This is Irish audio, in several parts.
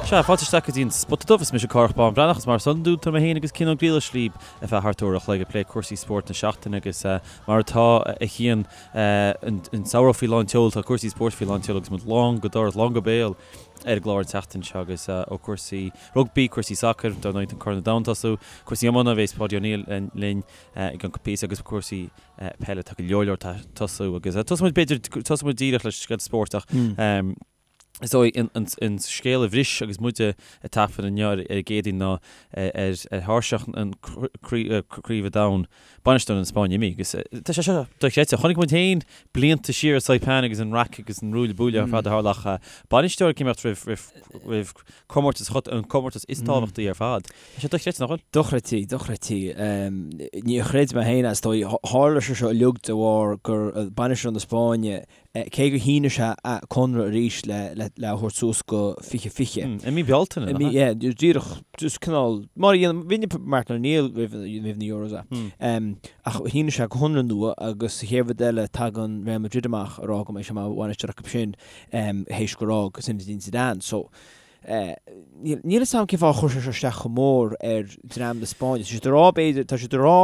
Sea, fáilte isteach go dtí an Spota Dubh, is mise Cárthach Bán Breathnach, is mar is iondúil tá mé féin agus Cian Ó Griallais libh ar feadh thart uair a chloig ag plé cúrsaí spóirt na seachtaine agus mar atá a Chian an samhradh faoi lán tseoil, tá cúrsaí spóirt faoi lán tseoil agus muid lán go doras, lán go béal ar an gclár an tseachtain seo agus ó cúrsaí rugbaí, cúrsaí sacair, dar ndóigh tá Corn an Domhain ag tosú, cúrsaí iomána, bheas Páidí Ó Néill linn i gceann píosa agus cúrsaí peile, tá go leor leor ag tosú agus tosóidh muid b'fhéidir, tosóidh muid díreach le scéalta spóirt ach is dóigh an scéal a bhris agus muid ag taifead inniu ar an gCéadaoin ná ar thairseach an Craoibhe Domhain, bainisteoir na Spáinne imithe agus tá sé seo dochreidte. Chonaic muid féin blianta siar i Saipan agus an raic agus an ruaille buaille ar fad a tharla ach bainisteoir ag imeacht roimh comórtas an comórtas is tábhachtaí ar fad. Tá sé dochreidte, nach bhfuil? Dochreidte, dochreidte. Níor chreid mé féin é, is dóigh. Tharla sé seo uilig de bharr gur bainisteoir na Spáinne, cé gur shínigh sé a conradh arís le le a thabhairt suas go 2020. I mí Bealtaine, nach ea? Yeah, díreach, just cineál, mar a dhéanann, rinne Martin O'Neill roimh roimh na Euros é. Ach shínigh sé conradh nua agus sa chéad rud eile tagann Real Madrid amach ag rá go mbeidh sé mar bhainisteoir acu sin théis gur fhág Zinedine Zidane. So, níl fhios agam cén fáth a chuir sé seo isteach chomh mór ar dream na Spáinne. Tá siad ag rá, b'fhéidir, tá siad ag rá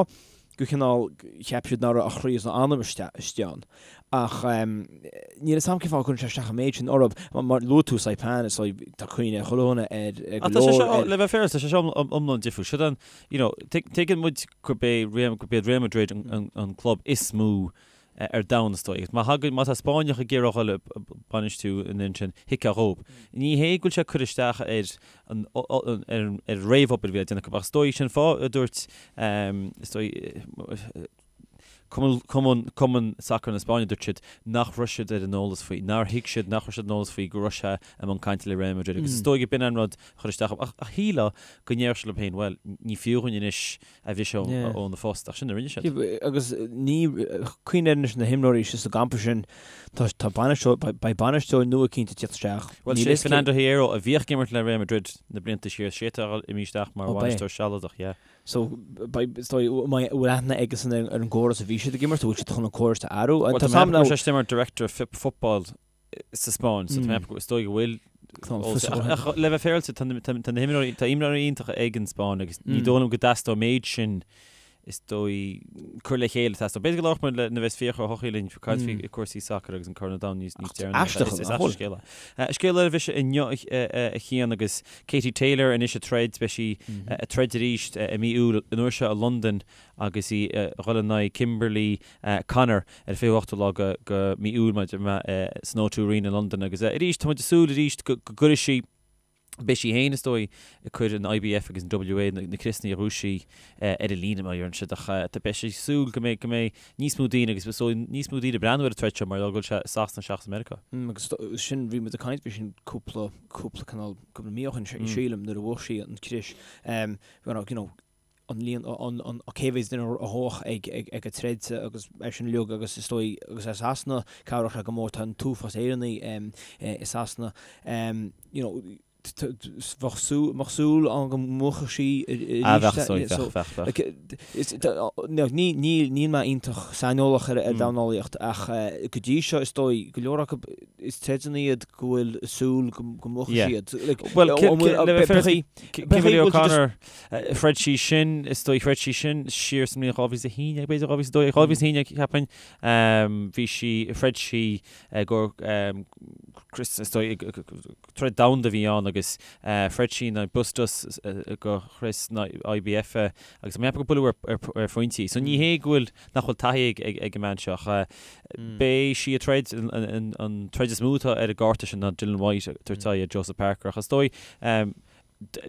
gur chineál cheap siad nach raibh a chroí is a anam istigh ann. Ach níl fhios agam cén fáth a gcuireann sé isteach an méid sin orthu. Mar luaigh tú Saipan, is dóigh, tá cuimhne ag chuile dhuine ar go leor. Tá sé seo, le bheith féaráilte, tá sé seo iomlán difriúil. Siod an, you know, tuigeann muid gurb é gurb iad Real Madrid an club is mó ar domhan is dóigh. Má thagann, má tá Spáinneach ag iarraidh a dhul ag bainistiú an fhoireann sin, thuigfeá dhóibh. Ní hé go bhfuil sé ag cur isteach ar an, ar an réamhobair a bhí á déanamh acu, ach is dóigh, sin fáth a dúirt, is dóigh, Cumann, Cumann, Cumann Sacair na Spáinne, dúirt siad nach raibh siad ar an eolas faoi, nár thuig siad, nach raibh siad ar an eolas faoi go raibh sé i mbun cainte le Real Madrid agus is dóigh go b'in an rud a chuir isteach orthu. Ach shílfeá go ndéarfadh siad leo féin, bhuel, ní fiú dhúinn anois a bhriseadh óna phost, ach sin a rinne siad. Agus ní, cuimhnigh anois na himreoirí istigh sa gcampa sin, tá, tá bainisteoir, beidh bainisteoir nua cinnte ag tíocht isteach. Bhuel, sé Fernando Hierro a bhíodh ag imirt le Real Madrid na blianta siar, sé atá imithe isteach mar bhainisteoir sealadach, yeah. So, beidh, is dóigh, an mbeidh, bhfuil aithne aigesan ar an gcóras a bhí siad ag imirt, an bhfuil siad chun an córas a athrú? Bhuel, tá mé ag ceapadh go bhfuil sé mar Director of Football sa Spáinn, so tá mé ag ceapadh, is dóigh go bhfuil Ach le bheith féaráilte, tá na himreoirí, tá imreoirí iontacha ag an Spáinn agus ní dóigh liom go dteastódh an méid sin is dóigh cur le chéile teastódh. B'fhéidir go labhróidh muid le nuair a bheas Fiachra Ó hEochaidh linn caint faoi cúrsaí sacair agus an Corn an Domhain níos níos deireanaí. Aisteach Is aisteach scéal é. Scéal eile a bhris inniu a Chian agus Katie Taylor anois ag troid, beidh sí ag troid arís i mí Iúil an uair seo i Londain agus í ag dhul in aghaidh Kimberly Connor ar an 28ú lá de mí Iúil maidir le san O2 Arena i Londain agus arís tá muid ag súil arís go gcuirfidh sí, beidh sí féin is dóigh ag cur an IBF agus an WA na criosanna a ghnóthaigh sí ar an líne mar a deireann siad ach beidh sí ag súil go mbeidh go mbeidh níos mó daoine agus is dóigh níos mó daoine ag breathnú ar an troid seo mar go bhfuil sé i Sasana seachas i Meiriceá. Agus sin bhí muid ag caint faoi sin cúpla cúpla cineál cúpla mí ó shin sílim nuair a bhuaigh sí an crios you know an líon, an cé mhéad duine a bheadh ag ag an troid agus é sin uilig agus is dóigh agus i Sasana cabhróidh sé go mór tá an t-uafás Éireannaigh i Sasana you know bheadh súil bheadh súil ann go mbuafadh sí arís Ah bheadh so bheadh bheadh bheadh. Ní ní níl mé iontach saineolach ar ar dornálaíocht ach go dtí seo is dóigh go leor acu is troideanna iad go bhfuil súil go mbuafadh siad. Well le bheith féaráilte Kimberly O'Connor Throid sí sin, is dóigh, throid sí sin siar sa mbliain 2011, b'fhéidir 2012, 2011 cheapfainn. Bhí sí, throid sí i gcomhair crios, is dóigh, troid domhanda a bhí ann agus throid sí in aghaidh Bustos do chrios na IBF agus tá mé ag ceapadh gur buaileadh ar phointí. So ní hé go bhfuil, nach bhfuil taithí ag an mbean seo ach beidh sí ag troid, an troid is mó atá ar an gcárta sin ná Dillian Whyte ag tabhairt aghaidh ar Joseph Parker ach is dóigh,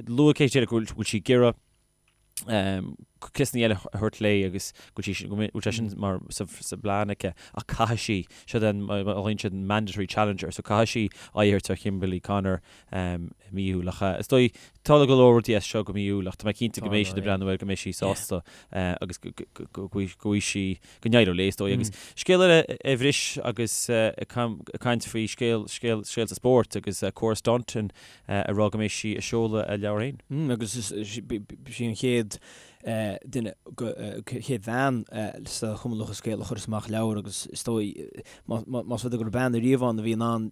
Luaigh Katie Taylor go bhfuil sí ag iarraidh criosanna eile a thabhairt léi agus go bhfuil sí, go bhfuil sé sin mar sa bplean aici ach caithfidh sí, seo den, mar a ghlaonn siad mandatory challenger, so caithfidh sí aghaidh a thabhairt ar Kimberly Connor i mí Iúil. Ach is dóigh, tá go leor rudaí as seo go mí Iúil ach tá mé cinnte go mbeidh siad ag breathnú air, go mbeidh sí sásta agus go bhfaighidh sí, go n-éireoidh léi is dóigh. Agus scéal eile a bhris agus ag caint faoi scéal, scéal, scéalta spóirt agus Cora Staunton ag rá go mbeidh sí ag seoladh a leabhar féin. Agus is í an chéad duine, chéad bhean sa Chumann Lúthchleas Gael a chuireas amach leabhar agus is dóigh, más rud é go raibh bean ariamh ann a bhí in ann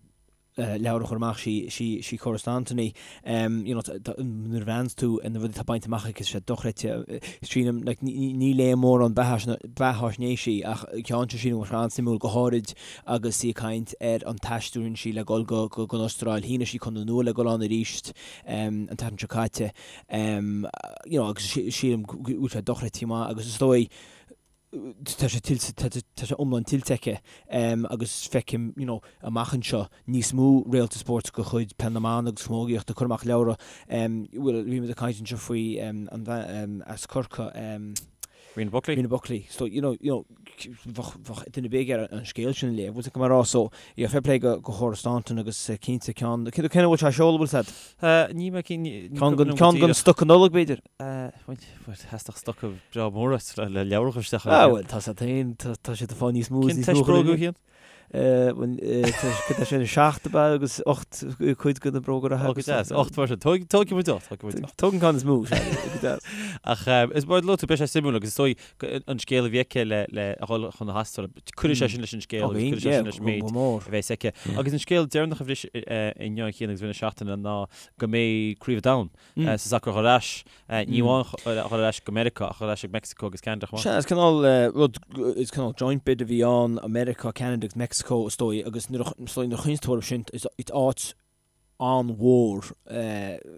leabhar a chur amach, sí Cora Staunton í. You know, nuair a bhreathnaíonns tú ar na rudaí atá bainte amach aici, tá sé dochreidte. Sílim, like, ní léim mórán beathaisnéisí ach ceann seo sílim go bhfuil sé an-suimiúil, go háirid agus í ag caint ar an taisteal a rinne sí le dul go go an Astráil. Shínigh sí conradh nua le dul ann arís an tseachtain seo caite. You know, agus sílim go bhfuil sé dochreidte maith agus is dóigh, tá sé tuillte, tá sé iomlán tuillte aici agus feicim, you know, amach anseo níos mó réalta spóirt de chuid Peil na mBan agus Camógaíochta ag cur amach leabhra. Bhuel, bhí muid ag caint anseo faoi an bhean as Corcaigh, Rena Buckley. Rena Buckley. So, you know, you know, bheadh, bheadh duine ar bith ag iarraidh an scéal sin a léamh, bhfuil a fhios agat cad tá mé a rá, so, yeah, fair play go, go Chora Staunton agus cinnte ceann, cén a bhfuil sé á seoladh, bhfuil a fhios agat? Ní mé cinn, ní Ceann den, ceann den stoca Nollag, b'fhéidir? Bhuel, theastódh stoca breá mór uait le leabhar a chur isteach ann. Ah, bhuel, tá sé féin, tá siad ag fáil níos mó is níos mó. Cén bróga a Chian? Bhuel, tá sé 7 ab ea agus 8 cuid de na bróga reatha. Ó, go deas, 8 mar sin. Tógfaidh muid 8, tógfaidh muid 8. Tóg an ceann is mó, sea, go deas. Ach is mar a luaigh tú, beidh sé suimiúil agus is dóigh an scéal a bhí aici le a dhul chun na hAstráile, cuirfidh sé sin leis an scéal agus cuirfidh sé sin leis an méid a bheas aici. Agus an scéal deireanach a bhris inniu a Chian agus i rith na seachtaine ná go mbeidh Craobh an Domhain sa sacar a dhul ar ais, ní amháin a dhul ar ais go Meiriceá ach a dhul ar ais ag Mexico agus Ceanada chomh maith. Sea, is cineál rud, is cineál joint bid a bhí ann, Meiriceá, Ceanada agus Mexico is dóigh agus nuair a, is dóigh nuair a chuimhníonns tú orthu sin, is áit an-mhór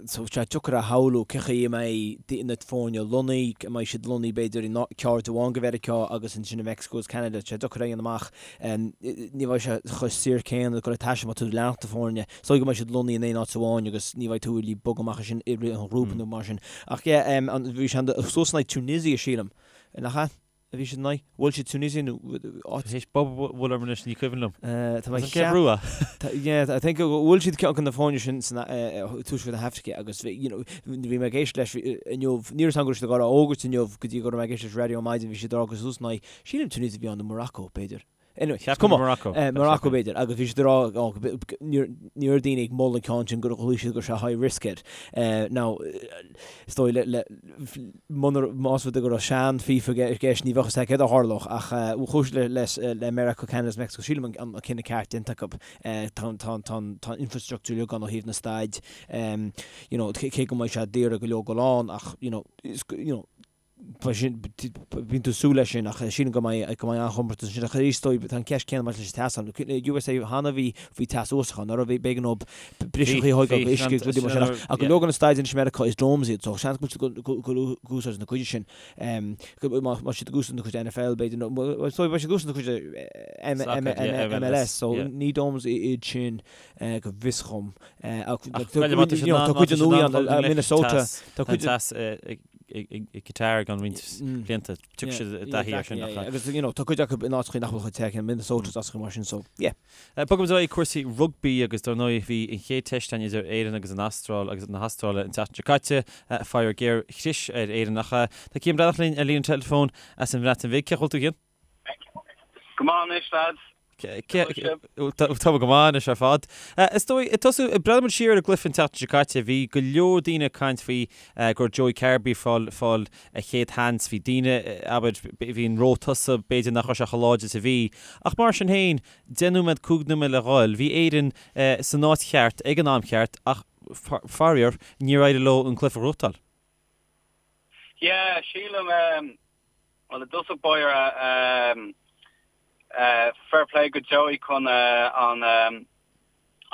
so tá sé deacair a shamhlú cén chaoi a mbeidh na foirne lonnaithe, an mbeidh siad lonnaithe b'fhéidir in ceard amháin de Mheiriceá agus ansin i Mexico agus Ceanada, tá sé deacair a dhéanamh amach. Ní bheidh sé chomh saor céanna ag dul ag taisteal má tá tú ag leanacht na foirne. Is dóigh go mbeidh siad lonnaithe in aon áit amháin agus ní bheidh tú really ag bogadh amach ansin i rith an ghrúpa nó mar sin. Ach yeah, bhí sé suas in aghaidh Tunisia, sílim. Nach ea? A bhí siad in aghaidh? Bhuail siad Tunisia nó áit? Théis bob a bhualadh orm anois, ní cuimhin liom. Tá mé ag ceap. Brú Yeah, I think go bhfuil siad ceann de na foirne sin san tuaisceart na hAfraice agus bhí, you know, bhí mé ag éisteacht leis inniu, ní raibh a fhios agam go raibh siad ag dul á fhógairt inniu go dtí go raibh mé ag éisteacht leis raidió ar maidin, bhí siad ag rá gur suas in aghaidh, sílim Tunisia a bhí ann nó Morocco, b'fhéidir. Anyway, is cuma. Morocco. Morocco b'fhéidir, agus bhí siad ag rá, oh, ní raibh daoine ag moladh an ceann sin gur ghlaoigh siad go raibh sé high risk air. Now, is dóigh le, le, munar, más rud é go raibh sean FIFA i gceist, ní bheadh a fhios acu céard a tharlódh, ach chuaigh siad le, le, le Meiriceá, Canada agus Mexico, sílim an, an cinneadh ceart déanta acu. Tá, tá, tá, tá an infrastructure uilig ann ó thaobh na staid, you know, cé go mbeidh sé daor go leor dul ann, ach, you know, is, you know, Bíonn tú ag súil leis sin ach sílim go mbeidh go mbeidh an-chomórtas ansin ach arís is dóigh tá an ceist céanna maidir leis an teas ann. USA cheana bhí faoi teas uafásach ann, nach raibh b'éigean dóibh briseachaí a thógáil go uisce agus rudaí mar sin ach ach go leor de na staideanna anois i Meiriceá is domes iad so seans go bhfuil siad ag úsáid na cuide sin má tá siad ag úsáid na cuid NFL b'fhéidir nó is dóigh beidh siad ag úsáid na cuid MLS so ní domes iad sin go bhfios dhom ach tá cuid den nua ann Minnesota tá cuid i Qatar i gceann roinnt blianta. Tiocfaidh siad i dtaithí air sin. Agus you know tá cuid acu in áiteacha nach bhfuil chomh te céanna, Minnesota is áiteacha mar sin so yeah. Bogfaimid ar aghaidh cúrsaí rugbaí agus dar ndóigh bhí an chéad teist ann idir Éirinn agus an Astráil agus na hAstráile an tseachtain seo caite. Faraor géar chlis ar Éirinn ach tá Cian Breathnach linn ar líne an teileafóin as an Bhreatain Bhig. Cén chaoi a bhfuil tú a Chian? Go maith anois lads. Tá go maith anois ar fad. Is dóigh, ag tosú, breathnaíonn muid siar ar an gcluiche an tseachtain seo caite, bhí go leor daoine ag caint faoi go raibh Joey Carbery ag fáil, fáil a chéad sheans, bhí daoine, abair, bhí an ró tosaigh, b'fhéidir nach raibh sé chomh láidir is a bhí. Ach mar sin féin, 10 nóiméad, 5 nóiméad le dhul, bhí Éirinn san áit cheart ag an am cheart ach faraor, níor éirigh leo an cluiche a ghnóthachtáil. Yeah, sílim, bhuel i dtosach báire, fair play go Joey chun an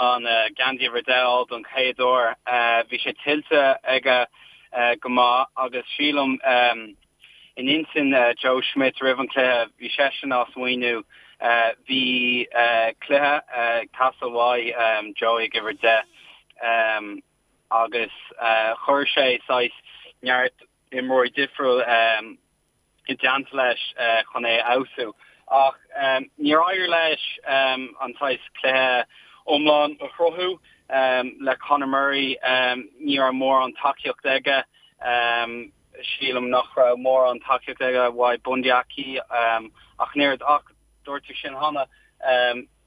an geansaí uimhir 10 a fháil don chéad uair. Bhí sé tuillte aige go maith agus sílim in intinn Joe Schmidt roimh an chluiche, bhí seisean á smaoineamh, bhí cluiche ag teastáil uaidh Joey ag uimhir 10 agus chuir sé saghas neart imreoirí difriúil i dteannta leis chun é a fheabhsú. Ach níor éirigh leis an saghas cluiche iomlán a chruthú le Conor Murray. Ní raibh mórán tacaíocht aige. Sílim nach raibh mórán tacaíocht aige uaidh Bundee Aki ach an oiread. Ach dúirt tú sin cheana.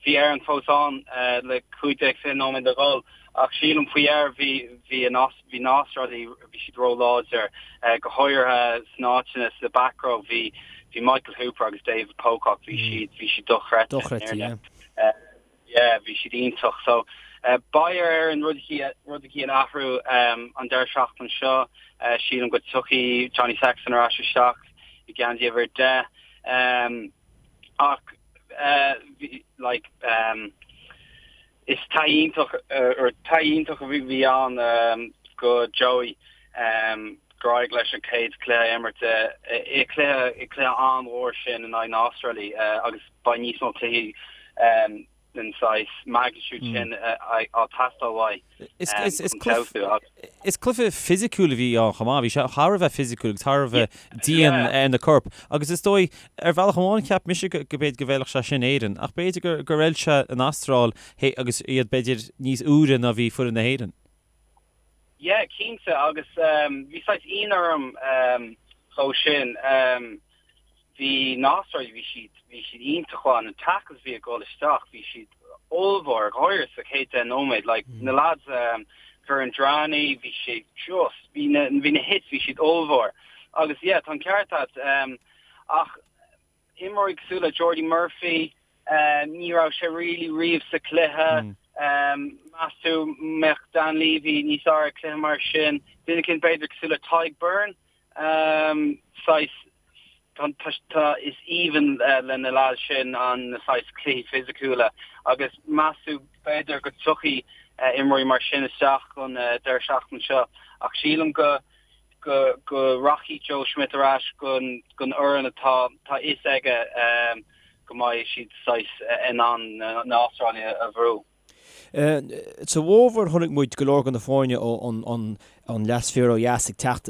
Bhí Éirinn fós ann le 15, 20 nóiméad le dhul ach sílim faoi dheireadh bhí bhí an bhí na hAstrálaigh bhí siad róláidir, go háirithe sna áiteanna sa back row bhí bhí Michael Hooper agus David Pocock bhí siad bhí siad dochreidte. Dochreidte, yeah. Yeah, bhí siad iontach. So. Beidh ar Éirinn rud eicínt a athrú an deireadh seachtaine seo. Sílim go dtiocfaidh Johnny Sexton ar ais isteach i ngeansaí uimhir 10. Ach like is taithí iontach or taithí iontach a bhí ann go Joey gur éirigh leis an chéad chluiche a imirt i cluiche i cluiche an-mhór sin in aghaidh na hAstráile agus beidh níos mó cluichí den saghas magnitude sin á teastáil uaidh chun feabhsú. Is cluiche fisiciúil a bhí ann chomh maith. Bhí sé thar a bheith fisiciúil agus thar a bheith dian ar na coirp. Agus is dóigh, ar bhealach amháin, cheap mise go b'fhéidir go bhfeilfeadh sé sin Éirinn, ach b'fhéidir gur fheil sé an Astráil agus iad b'fhéidir níos úire ná bhí foireann na hÉireann. Yeah, cinnte, agus bhí saghas ionadh orm dhó sin. Bhí na hAstrálaigh, bhí siad, bhí siad iontach mhaith, na tackles a bhí ag dul isteach, bhí siad ollmhór, go háirithe sa chéad 10 nóiméad, like na lads, Kuridrani, bhí sé just, bhí na, bhí na hits, bhí siad ollmhór. Agus yeah, tá an ceart agat, ach imreoirí cosúil le Jordi Murphy, ní raibh sé really riamh sa chluiche, meas tú mbeadh Dan Leavy níos fearr ag cluiche mar sin, duine eicínt b'fhéidir cosúil le Tadhg Beirne, saghas, tá, is aoibhinn le na lads sin an na saghas cluichí fisiciúla agus meas tú b'fhéidir go dtiocfaidh imreoirí mar sin isteach don deireadh seachtaine seo ach sílim go go go rachaidh Joe Schmidt ar ais gon gon fhoireann atá tá fhios aige go mbeidh siad saghas in ann na hAstrálaigh a bhrú. Sa bhfómhar chonaic muid go leor de na foirne ón leathsféar ó dheas ag teacht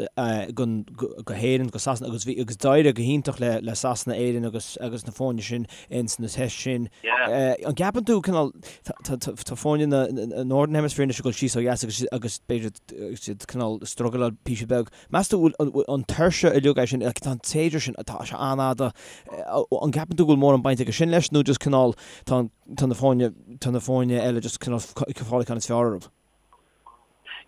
go hÉirinn, go Sasana agus bhí agus d'éirigh go hiontach le Sasana, Éirinn agus agus na foirne sin ins na tests sin. An gceapann tú cineál tá foirne na Northern Hemisphere anois ag dul síos ó dheas agus agus b'fhéidir siad cineál struggleáil píosa beag. Meas tú bhfuil an tuirse uilig é sin, tá an tséasúr sin, tá sé an-fhada, an gceapann tú go bhfuil mórán baint aige sin leis nó just cineál tá an tá na foirne, tá na foirne eile just cineál ag fáil an ceann is fearr orthu.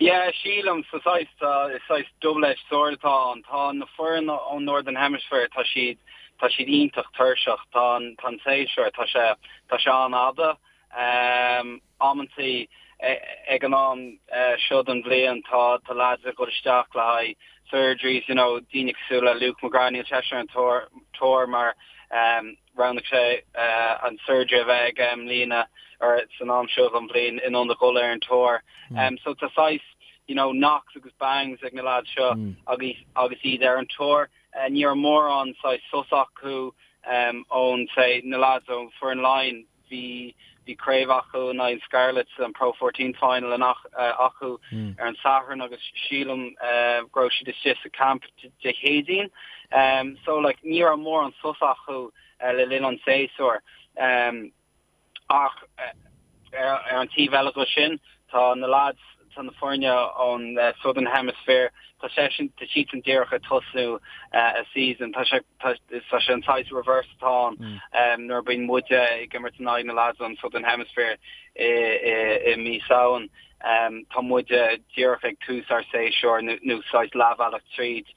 Yeah, sílim, sa saghas, tá, is saghas double-edged sword atá ann. Tá na foireann ón Northern Hemisphere, tá siad, tá siad iontach tuirseach. Tá an, tá an séasúr, tá sé, tá sé an-fhada. Amantaí, ag an am seo den bhliain, tá, tá lads ag dul isteach le haghaidh surgeries, you know, daoine cosúil le Luke McGrath, níl seisean ar an tour, tour mar, Roghnaigh sé an surgery a bheith aige i mbliana or san am seo den bhliain in ionad dhul ar an tour. So tá saghas you know knocks agus bangs ag na lads seo agus agus iad ar an tour. Ní raibh mórán saghas sos acu ón say na lads ó foireann Laighean. Bhí bhí craobh acu in aghaidh Scarlets an Pro 14 final acu ar an Satharn agus sílim go raibh siad istigh sa camp Dé Céadaoin. So like ní raibh mórán sos acu le linn an tséasúir. Ach ar an taobh eile de sin tá na lads tá na foirne ón Southern Hemisphere, tá seisean, tá siadsan díreach ag tosnú a season, tá sé, tá sé an saghas reverse atá ann nuair a bíonn muide ag imirt in aghaidh na lads ón Southern Hemisphere i mí Samhain, tá muide díreach ag tús ár séasúr nó saghas leathbhealach tríd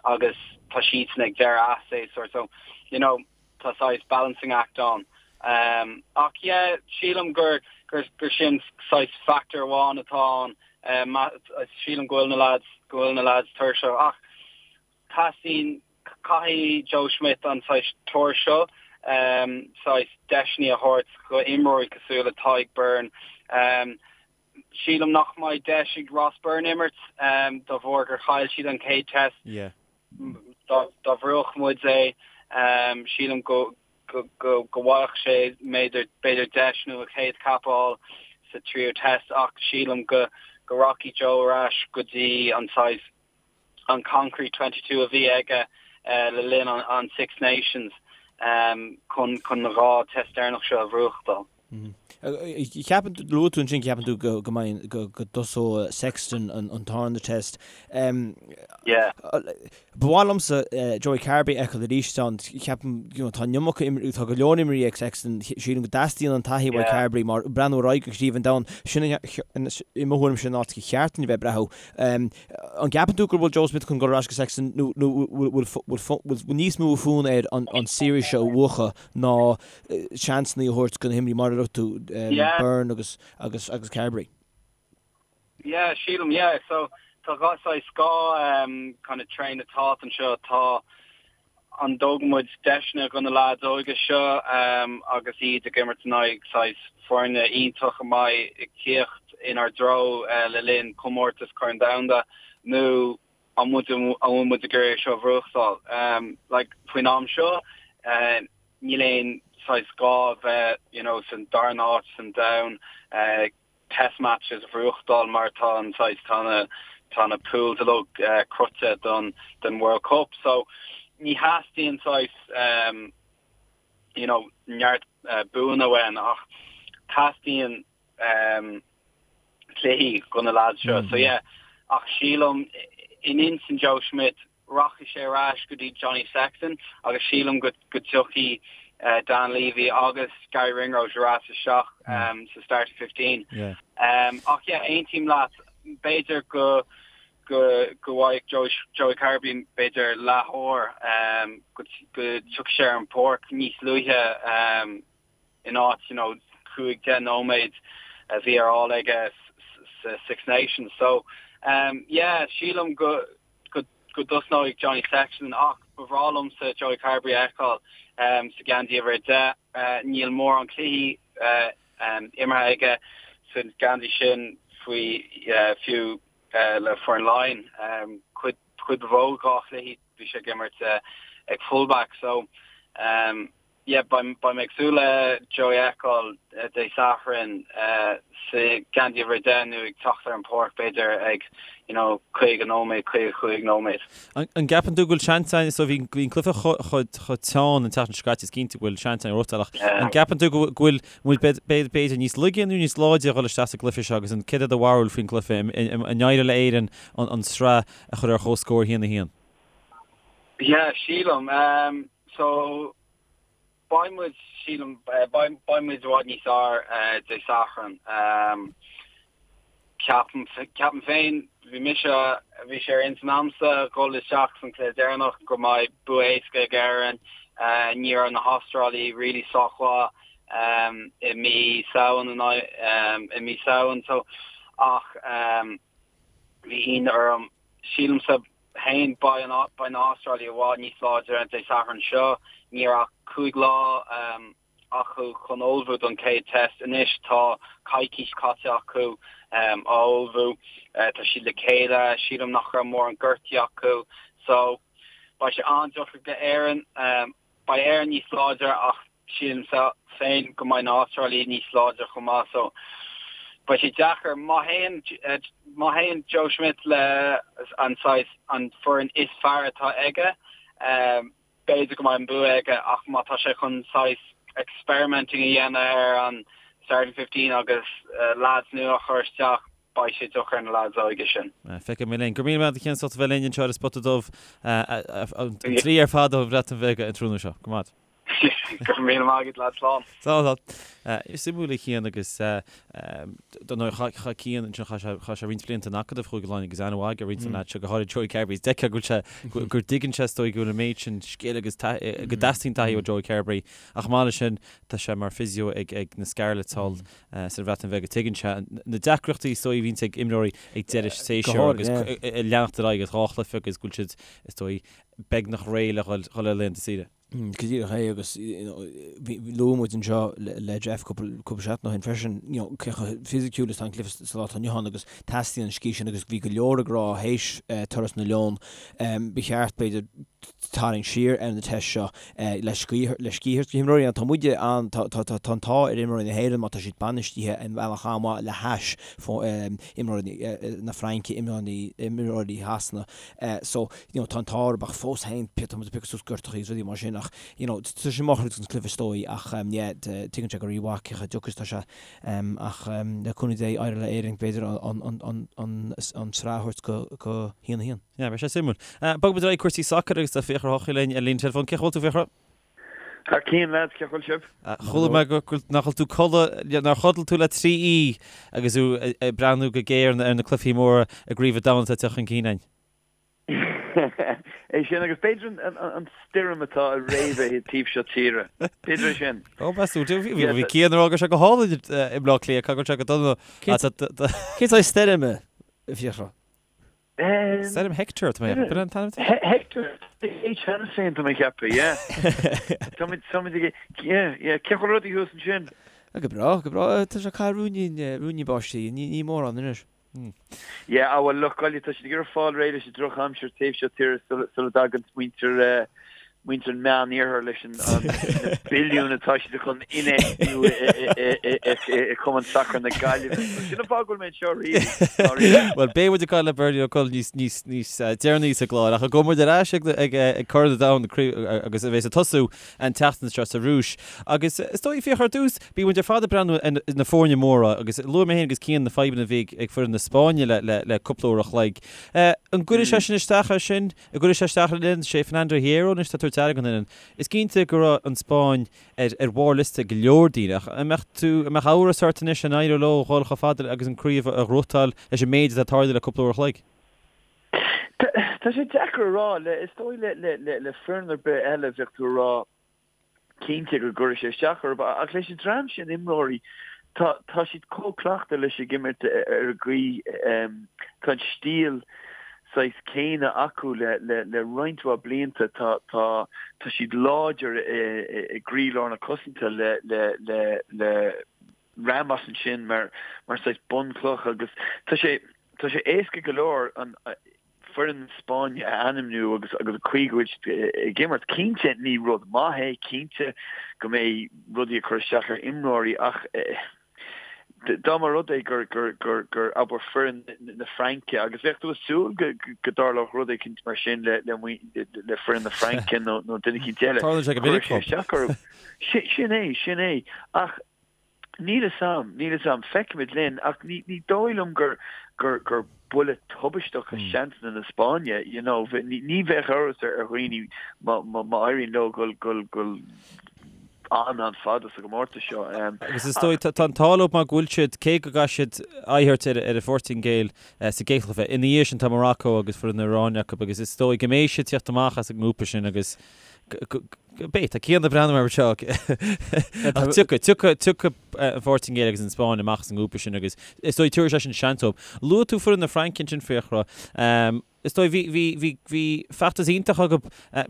agus tá siadsan ag deireadh a séasúr so, you know, tá saghas balancing act ann. Ach yeah, sílim gur gur sin saghas factor amháin atá ann. Sílim go bhfuil na lads, go bhfuil na lads tuirseach. Ach teastaíonn, caithfidh Joe Schmidt an saghas tour seo, saghas deiseanna a thabhairt go imreoirí cosúil le Tadhg Beirne. Sílim nach mbeidh deis ag Ross Byrne imirt de bharr gur chaill siad an chéad test. Dá bhuafadh muid é, sílim go bhfaigheadh sé b'fhéidir deis nó a chéad cap a fháil sa tríú test ach sílim go rachaidh Joe ar ais go dtí an saghas an concrete 22 a bhí aige le linn an Six Nations chun na dhá test deireanach seo a bhuachtáil. Ceapann tú, luaigh tú ansin, ceapann tú go go mbeidh, go go dtosóidh Sexton an an tarna test. Yeah. Ba mhaith liomsa Joey Carbery a fheiceáil arís ann. Ceapaim, you know, tá an iomarca imreoirí, tá go leor imreoirí ag Sexton, sílim go dteastaíonn an taithí uaidh Carbery mar breathnú ar aghaidh go Craobh an Domhain, sin i mo thuairim sin an áit gur cheart dúinn a bheith ag breathnú. An gceapann tú go bhfuil Joe Schmidt chun dul ar ais go Sexton nó nó bhfuil bhfuil níos mó fonn air an an series seo a bhuachan ná seansanna a thabhairt do na himreoirí mar a dúirt tú. Byrne agus agus agus Carbery. Yeah, sílim, yeah. So tá dhá saghas dhá kind of train of thought anseo. Tá an dtógann muid deiseanna do na leaids óga seo agus iad ag imirt in aghaidh saghas foirne iontach a mbeidh ag tíocht inár dtreo le linn comórtas Corn Domhanda nó an muid an bhfuil muid ag iarraidh é seo a bhuachtáil? Like faoin am seo níl aon saghas gá a bheith you know san darna háit san domhan test matches a bhuachtáil mar tá an saghas tá na tá na pools uilig cruthaithe don don World Cup so ní theastaíonn saghas um, you know neart uh, buanna uainn ach teastaíonn um, cluichí do na lads seo. So yeah, ach sílim in intinn Joe Schmidt rachaidh sé ar ais go dtí Johnny Sexton agus sílim go go dtiocfaidh Dan Leavy agus Garry Ringrose ar ais isteach sa starting 15. Ach yeah, aontaím leat, b'fhéidir go go go bhfaighidh Joey Joey Carbery b'fhéidir leathuair go go dtiocfaidh sé ar an bpáirc níos luaithe in áit you know 5, 10 nóiméad a bhí ar fáil aige sa Six Nations. So yeah, sílim go go go dtosnóidh Johnny Sexton ach ba bhreá liomsa Joey Carbery a fheiceáil sa gheansaí uimhir 10. Níl mórán cluichí imeartha aige sa gheansaí sin faoi fiú le foireann Laighean. Cuid cuid ba mhó dá chluichí bhí sé ag imirt ag fullback so Yeah, beidh mé ag súil le Joey a fheiceáil Dé Sathairn sa gheansaí uimhir 10 nó ag teacht ar an pháirc b'fhéidir ag you know 50 nóiméad, 55 nóiméad. An gceapann tú go bhfuil seans ann, so bhí an cluiche chomh teann an tseachtain seo caite, is cinnte go bhfuil seans ann a ach an gceapann tú go bhfuil muid b'fhéidir níos laige nó níos láidre a dhul isteach sa gcluiche seo agus an céard é do bharúil faoin gcluiche, an éireoidh le Éirinn an tsraith a chur ar chomhscór 1-1? Yeah, sílim. So, beidh muid, sílim, beidh muid i bhfad níos fearr Dé Sathairn. Ceapaim, ceapaim féin, bhí mise, bhí sé ar intinn a'msa dhul isteach san cluiche deireanach go mbeidh bua éasca ag Éirinn. Ní raibh na hAstrálaigh really sách mhaith i mí Samhain, i mí Samhain, so, ach bhí ionadh orm. Sílimse féin, beidh na hAstrálaigh i bhfad níos láidre Dé Sathairn seo. Ní raibh ach 5 lá acu chun ullmhú don chéad test. Anois tá coicís caite acu á ullmhú. Tá siad le chéile. Sílim nach raibh mórán gortaí acu. So, beidh sé an-deacair do Éirinn. Beidh Éirinn níos láidre ach sílimse féin go mbeidh na hAstrálaigh níos láidre chomh maith so beidh sé deacair. Má théann má théann Joe Schmidt le an saghas an foireann is fearr atá aige b'fhéidir go mbeidh an bua aige ach má tá sé chun saghas experimenting a dhéanamh ar an starting 15 agus lads nua a chur isteach beidh sé deacair ar na lads óige sin. Feicfidh muid linn. Go raibh míle maith agat a Chian as ucht a bheith linn anseo ar an Spota Dubh an tslí ar fad ón Bhreatain Bheag an tráthnóna seo. Go maith. Go raibh míle maith agat, lads. Slán. Slán, slán. Is suimiúil a Chian agus dar ndóigh chaith Cian ansin chaith sé chaith sé roinnt blianta in Acadamh Chúige Laighean agus aithne mhaith aige ar roinnt de na lads seo, go háirid Joey Carbery. Is d'fheicfeá go bhfuil sé go dtuigeann sé is dóigh go bhfuil an méid sin scil agus go dteastaíonn taithí ó Joey Carbery ach chomh maith leis sin tá sé mar physio ag ag na Scarlets thall sa Bhreatain Bheag. Tuigeann sé na deacrachtaí is dóigh a bhíonns ag imreoirí ag deireadh séasúir agus ag leanacht ar aghaidh as dhá chluiche agus go bhfuil siad, is dóigh, beagnach réidh le dhul ar laethanta saoire. Go díreach é agus luaigh muid anseo le Jeff cúpla seachtain ó shin freisin, you know, cé chomh fisiciúil is atá an cluiche sa lá atá inniu ann agus teastaíonn an scíth sin agus bhí go leor ag rá théis turas na Leon, ba cheart b'fhéidir tarraingt siar ar na tests seo le scíth le scíth a thabhairt do na himreoirí. Tá muide an, tá tá tá an t-ádh ar imreoirí na hÉireann má tá siad bainistithe i mbealach an-mhaith le hais imreoirí na Fraince, imreoirí imreoirí Shasana. So, you know, tá an t-ádh orthu ach fós féin tá muid ag piocadh suas gortachaí agus rudaí mar sin ach, you know, tá sé maith an cluiche is dóigh ach yeah, tuigeann sé go rímhaith cé chomh deacair is atá sé ach le cúnamh Dé éireoidh le Éirinn b'fhéidir an an an an an tsraith a thabhairt go go haon a haon. Yeah, beidh sé suimiúil. Bogfaidh muid ar aghaidh cúrsaí sacair agus tá Fiachra Ó hEochaidh linn ar líne teileafóin. Cén chaoi a bhfuil tú, Fiachra? Thar cionn, lads, cén chaoi a bhfuil sibh? Chuala mé go bhfuil, nach bhfuil tú codladh, nár chodail tú le 3 oíche agus tú ag breathnú go géar ar na cluichí móra i gCraobh an Domhain atá ag teacht chun cinn againn. É sin agus b'fhéidir an stoirm atá ag réabadh an taobh seo tíre. B'fhéidir é sin. Ó, meas tú, bhí Cian ag rá go raibh sé go hálainn i mBleá Cliath, caithfidh go bhfuil sé go dona. Cén saghas stoirme, a Fhiachra? Stoirm Hector, tá mé ag ceapadh, an t-ainm atá? Hector, H cheana féin, tá mé ag ceapadh, yeah. Táimid, táimid ag, yeah, yeah, cén chaoi a bhfuil rudaí thuas ansin? Go breá, go breá, tá sé ag caitheamh ruainnín, ruainnín báistí, ní, ní mórán anois. Yeah, ah bhuel, lucht Gaillimh, tá siad ag iarraidh fáil réidh leis an drochaimsir taobh seo tíre sula, sula dtagann muintir, eh, muintir an Meán-Iarthair leis an na billiúin atá siad chun infheistiú i Cumann Sacair na Gaillimhe. Sin an fáth go bhfuil mé anseo really, dáiríre. Bhuel, beidh muid ag caint le Bernie Ó Coll níos níos níos deireanaí sa gclár, ach gabhfaidh muid ar ais ag ag ag Corn an Domhain agus a bheas ag tosú an tseachtain seo sa Rúis. Agus is dóigh, Fiachra, ar dtús, bíonn muid ar fad ag breathnú ar na foirne móra agus luaigh mé féin agus Cian na fadhbanna a bhí ag foireann na Spáinne le le le cúpla uair a chloig. An gcuirfidh sé sin isteach air sin? An gcuirfidh sé isteach ar an fhoireann, sé Fernando Hierro anois atá ag tabhairt aire don fhoireann. Is cinnte go raibh an Spáinn ar ar bharr liosta go leor daoine ach an mbeadh tú, an mbeadh amhras ort anois an éireoidh leo dhul chomh fada agus an craobh a ghnóthachtáil leis an méid atá tarlaithe le cúpla uair a chloig? Tá sé deacair a rá. Le, is dóigh le, le, le, le foireann ar bith eile bheadh tú ag rá, cinnte go gcuirfidh sé isteach orthu ach leis an dream sin imreoirí tá tá siad chomh cleachta leis ag imirt ar an gcaoi tá an stíl saghas céanna acu le le le roinnt mhaith blianta tá tá tá siad láidir i i gcroílár na cosanta le le le le Ramos ansin mar mar saghas bunchloch agus tá sé tá sé éasca go leor an foireann na Spáinne a ainmniú agus agus an chaoi go bhfuil siad ag imirt. Cinnte ní rud maith é, cinnte go mbeidh rudaí ag cur isteach ar imreoirí ach dá mba rud é gur gur gur gur abair foireann na Fraince agus bheadh tú ag súil go go dtarlódh rud éicint mar sin le le le foireann na Fraince nó nó duine éicint eile. Tarlaíonn sé go minic. Cuirfidh sé isteach orthu. Sin é, sin é. Ach Níl fhios a'm, níl fhios a'm. Feicfimid linn, ach ní, ní dóigh liom gur, gur, gur buille tubaisteach do sheansanna na Spáinne, you know. Ní, ní bheadh amhras ar, ar dhaoine má, má, má éiríonn leo dul, dul, dul an-an-fhada sa gcomórtas seo. Agus is dóigh, tá, tá an t-ádh leo mar go bhfuil siad, cé go gcaithfidh siad aghaidh a thabhairt ar, ar an Phortaingéil sa gcéad chluiche, ina dhiaidh sin tá Morocco agus foireann na hIaráine acu agus is dóigh go mbeidh siad teacht amach as an ngrúpa sin agus go, Beidh, tá Cian ag breathnú orm anseo. Ach tiocfaidh, tiocfaidh, tiocfaidh an Phortaingéil agus an Spáinn amach as an ngrúpa sin agus is dóigh tabharfaidh sé sin seans dóibh. Luaigh tú foireann na Fraince ansin, Fiachra. Is dóigh bhí, bhí, bhí, bhí feachtas iontach acu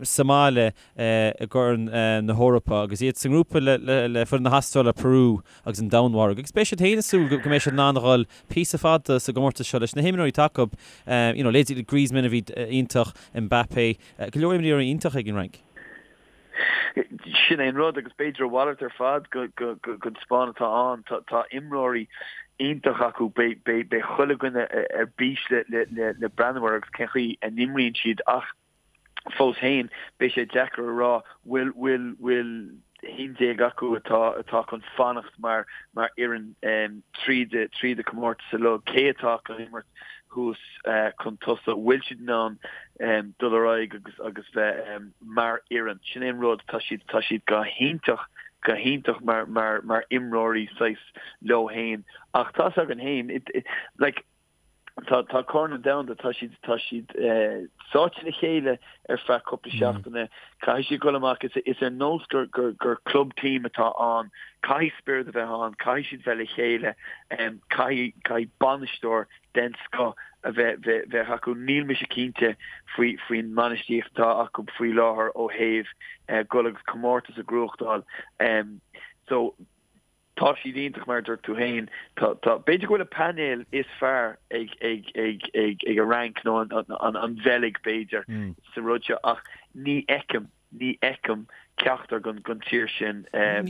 sa mbaile i gCorn na hEorpa agus iad sa ngrúpa le, le, le foireann na hAstráile, Peru agus an Danmhairg. Agus beidh siad féin ag súil go, go mbeidh siad in ann a dhul píosa fada sa gcomórtas seo leis na himreoirí atá acu. You know, leithéidí Griezmann a bhí iontach, Mbappé, go leor imreoirí iontach ag an Fhrainc. Sin é an rud, agus b'fhéidir a mhalairt ar fad den Spáinn atá ann. Tá imreoirí iontach acu, beidh chuile dhuine ar bís le breathnú air agus cén chaoi a n-imríonn siad ach fós féin beidh sé deacair a rá bhfuil bhfuil bhfuil 11 acu atá atá chun fanacht mar mar fhoireann tríd tríd an comórtas uilig, cé atá chun imirt thuas chun tosaigh, bhfuil siad in ann dul ar aghaidh agus agus bheith mar fhoireann. Sin é an rud, tá siad tá siad go hiontach go hiontach mar mar mar imreoirí saghas leo féin ach tá's againn féin like tá tá Corn an Domhanda tá siad tá siad sáite le chéile ar feadh cúpla seachtaine caithfidh siad dul amach is is ar nós gur gur gur club team atá ann caithfidh spiorad a bheith ann caithfidh siad bheith le chéile caithfidh caithfidh bainisteoir den scoth a bheith bheith bheith acu níl mise cinnte faoi faoin mbainistíocht atá acu faoi láthair ó thaobh dul agus comórtas a ghnóthachtáil so Tá siad iontach mar a dúirt tú féin. Tá, tá, b'fhéidir go bhfuil an painéal is fearr ag, ag, ag, ag, ag an Fhrainc nó an, an, an, an Bheilg b'fhéidir sa rud seo ach ní fheicim, ní fheicim ceachtar den, den tír sin ag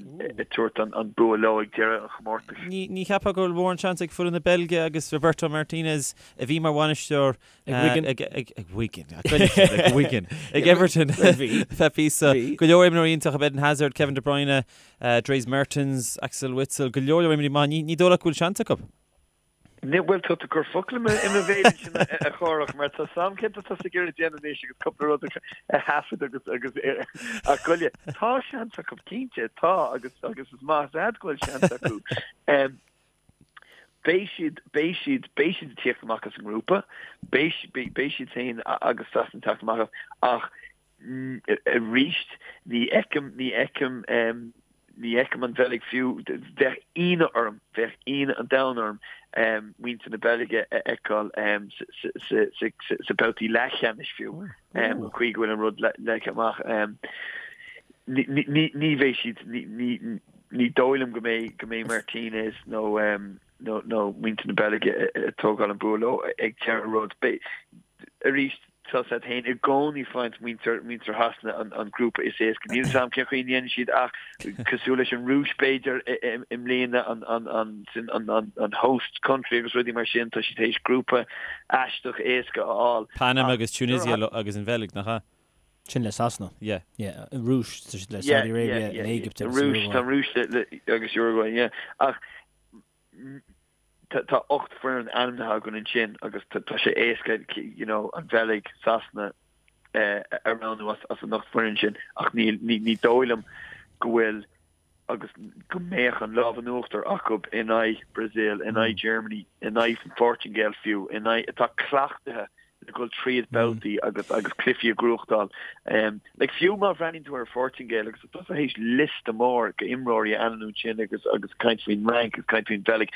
tabhairt an, an bua leo ag deireadh an chomórtais. Ní, ní cheapfá go bhfuil mórán seans ag foireann na Beilge agus Roberto Martinez a bhí mar bhainisteoir Ag Wigan. Ag, ag, ag Wigan. Ag Wigan. Ag Everton. Bhí. Feadh píosa. Go leor imreoirí iontach, Eden Hazard, Kevin De Bruyne, Dries Mertens, Axel Witsel, go leor leor imreoirí maith. Ní, ní dóigh leat go bhfuil seans acu? Ní, bhuel, tá tú ag cur focal i mo bhéal ansin a Chárthach, mar tá 's a'm céard atá tusa ag iarraidh déanamh anois agus cúpla rud a thaifead agus, agus, ach goile, tá seans acu, cinnte, tá, agus, agus is maith is ea go bhfuil seans acu. Beidh siad, beidh siad, beidh siad ag tíocht amach as an ngrúpa, beidh, beidh siad féin agus Sasana ag teacht amach as, ach arís ní fheicim, ní fheicim, ní fheicim an Bheilg fiú, bheadh ionadh orm, bheadh ionadh an domhain orm muintir na Beilge a fheiceáil sa babhtaí leathcheannais fiú, an chaoi go bhfuil an rud leagtha amach. Ní bheidh siad, ní dóigh liom go mbeidh, go mbeidh Martinez nó nó muintir na Beilge ag tógáil an bua leo ag deireadh rud. Arís, tá a fhios agat féin i gcónaí faigheann muintir muintir Shasana an an grúpa is éasca. Níl a fhios agam cén chaoi a ndéanann siad ach cosúil leis an Rúis b'fhéidir i mbliana an an an sin an an an host country agus rudaí mar sin tá siad théis grúpa aisteach éasca a fháil. Panama agus Tunisia agus an Bheilg, nach ea? Sin le Sasana. Yeah. Yeah. An Rúis, tá siad le Saudi Arabia, an Éigipt agus Uruguay. Tá an Rúis le agus Uruguay, yeah. Ach tá 8 foireann ainmnithe againn ansin agus tá sé éasca you know an Bheilg, Sasana a roghnú as an 8 foireann sin ach ní ní dóigh liom go bhfuil agus go mbeadh an lámh in uachtar acu in aghaidh Brazil, in aghaidh Germany, in aghaidh an Phortaingéil fiú, in aghaidh atá cleachtaithe le dhul tríd babhtaí agus agus cluichí a ghnóthachtáil. Like fiú má bhreathnaíonn tú ar an Phortaingéil agus tá tusa théis liosta mór go imreoirí a ainmniú ansin agus agus caint faoin Fhrainc agus caint faoin Bheilg.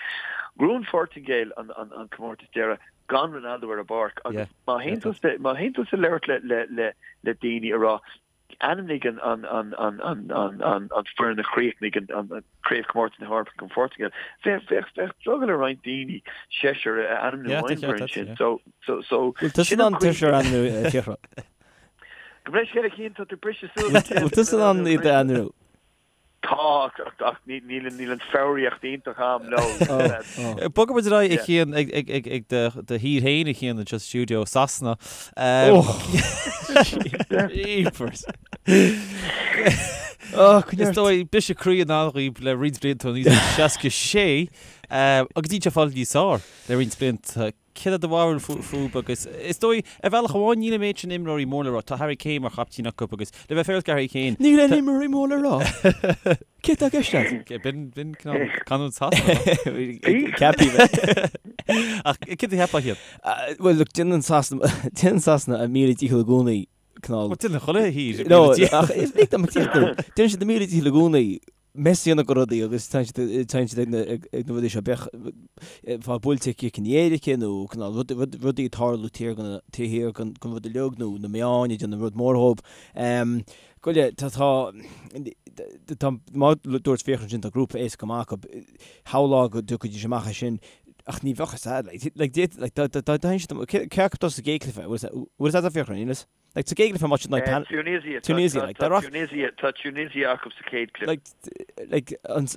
Ghnóthaigh an Phortaingéil an an an comórtas deireadh gan Ronaldo ar an bpáirc agus má théann tusa má théann tusa labhairt le le le le daoine a rá Ainmnigh an foireann a chríochnaigh an Craobhchomórtas na hEorpa an Phortaingéil. Bheadh drogall ar roinnt daoine seisear a ainmniú ón bhfoireann sin. Bhfuil tusa in ann seisear a ainmniú, a Fiachra? Gabh mo leithscéal a Chian, tá tú briseadh suas. Bhfuil tusa in ann iad a ainmniú? Tá, ach níl an foghraíocht iontach a'm leo. Bogfaidh muid ar aghaidh, a Chian, ag do thír féin, a Chian, anseo sa stiúideo, Sasana. Jeepers. Is dóigh, briseadh croí i ndán dhaoib le roinnt blianta ó 1966, agus níl sé fáil níos fearr le roinnt blianta. Céard é do bharúil fúthu agus is dóigh, ar bhealach amháin, níl an méid sin imreoirí mór le rá. Tá Harry Kane mar chaiptín acu agus le bheith féaráilte do Harry Kane. Níl aon imreoirí mór le rá. Céard atá i gceist agat? B'in, b'in cineál canúint Shasana. Ceapaí bheith. Ach céard a cheapfá iad? Bhuel, look, déanann Sasana, déanann Sasana a míle dícheall i gcónaí cineál. Bhuel, déanann chuile thír a míle dícheall. No, ach is lig dom tíocht dó. Déanann siad a míle dícheall i gcónaí mess a dhéanamh de rudaí agus téann siad ag na rudaí seo, bíodh fáil buailte cic in éirice nó cineál rudaí ag tarlú taobh thiar den rud uilig nó na meáin ag déanamh rud mór dhóibh. Goile, tá, tá, mar a dúirt Fiachra ansin, tá grúpa éasca go maith acu. Shamhlófá go dtiocfaidís amach as sin ach ní bheadh a fhios a'd, like, like, dá dtéann siad, cé acu atá sa gcéad chluiche, bhfuil a fhios a'd Fiachra, níl fhios? Like, sa gcéad chluiche má siad like, Tunisia, Tunisia, like, tá Tunisia, tá Tunisia acu sa chéad chluiche. Like, like,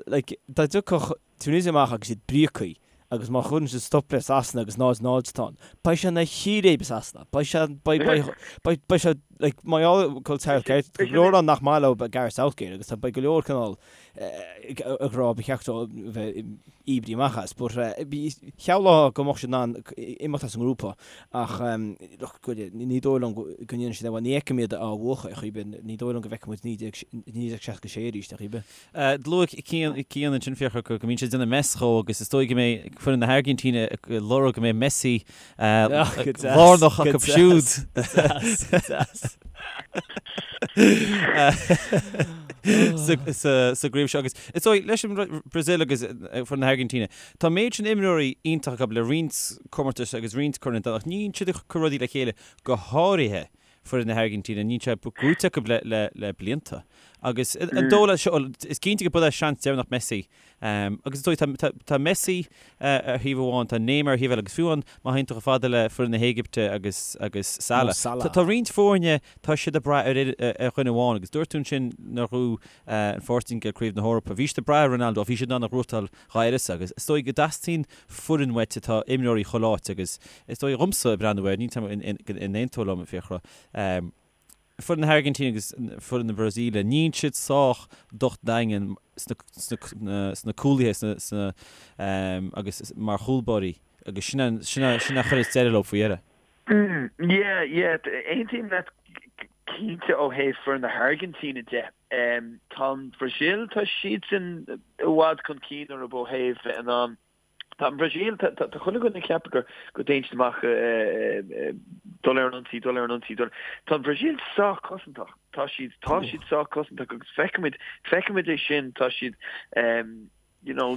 like, dá dtiocfadh Tunisia amach agus iad bríocaí agus má chuireann siad stop le Sasana agus 0-0 atá ann, beidh sé ina chíréib i Sasana. Beidh sé, beidh, beidh, beidh, beidh sé, like, má gheall go Southgate, go leor ann nach maith leo Gareth Southgate agus tá, beidh go leor cineál ag rá ba cheart dó bheith oibrithe amach as. But shamhlófá go mbeadh siad in ann imeacht as an ngrúpa ach look, ní dóigh liom go ndéanfaidh siad é. Bhuel, ní fheicim iad á bhuachan ar chaoi ar bith. Ní dóigh liom go bhfeicfidh muid 1966 arís ar chaoi ar bith. Luaigh Cian ansin Fiachra go mbíonn siad ag déanamh mess dhó agus is dóigh go mbeidh foireann na hAirgintíne ag lorg go mbeidh Messi lárnach acu siúd. Sa gcraobh seo agus is dóigh leis an Brazil agus foireann na hAirgintíne, tá an méid sin imreoirí iontach acu le roinnt comórtais agus roinnt corn an domhain ach ní bhíonn siad ag cur rudaí le chéile go háirithe foireann na hAirgintíne, níl sé gnóite acu le blianta. Agus an dóigh leat seo, is cinnte go b'é seans deireanach Messi Agus is dóigh, tá Messi ar thaobh amháin, tá Neymar ar thaobh eile agus fiú amháin má théann tú chomh fada le foireann na hÉigipte agus agus Salah. Tá roinnt foirne, tá siad ag brath ar ar dhuine amháin agus dúirt tú ansin nuair a ghnóthaigh an Phortaingéil Craobh na hEorpa, bhí siad ag brath ar Ronaldo ach bhí siad in ann a ghnóthachtáil dá uireasa agus is dóigh go dteastaíonn foireann uait atá imreoirí chuile áit agus is dóigh dhomsa ag breathnú air, níl 'fhios a'm an aontófá liom, a Fiachra. Foireann na hAirgintíne agus foireann na Brasaíle, níl siad sách docht daingean sna cúlaithe sna agus mar chúlbáirí agus sin a chuireas deireadh leo faoi dheireadh. Yeah, yeah, aontaím leat cinnte ó thaobh foireann na hAirgintíne de. Tá an Bhrasaíl, tá siadsan i bhfad chun cinn orthu ó thaobh bheith in ann. Tá an Bhrasaíl, tá chuile dhuine ag ceapadh gur go dtéann siad amach dul ar an ionsaí, dul ar an ionsaí, dul. Tá an Bhrasaíl sách cosantach. Tá siad, tá siad sách cosantach agus feicimid, feicimid é sin, tá siad, you know,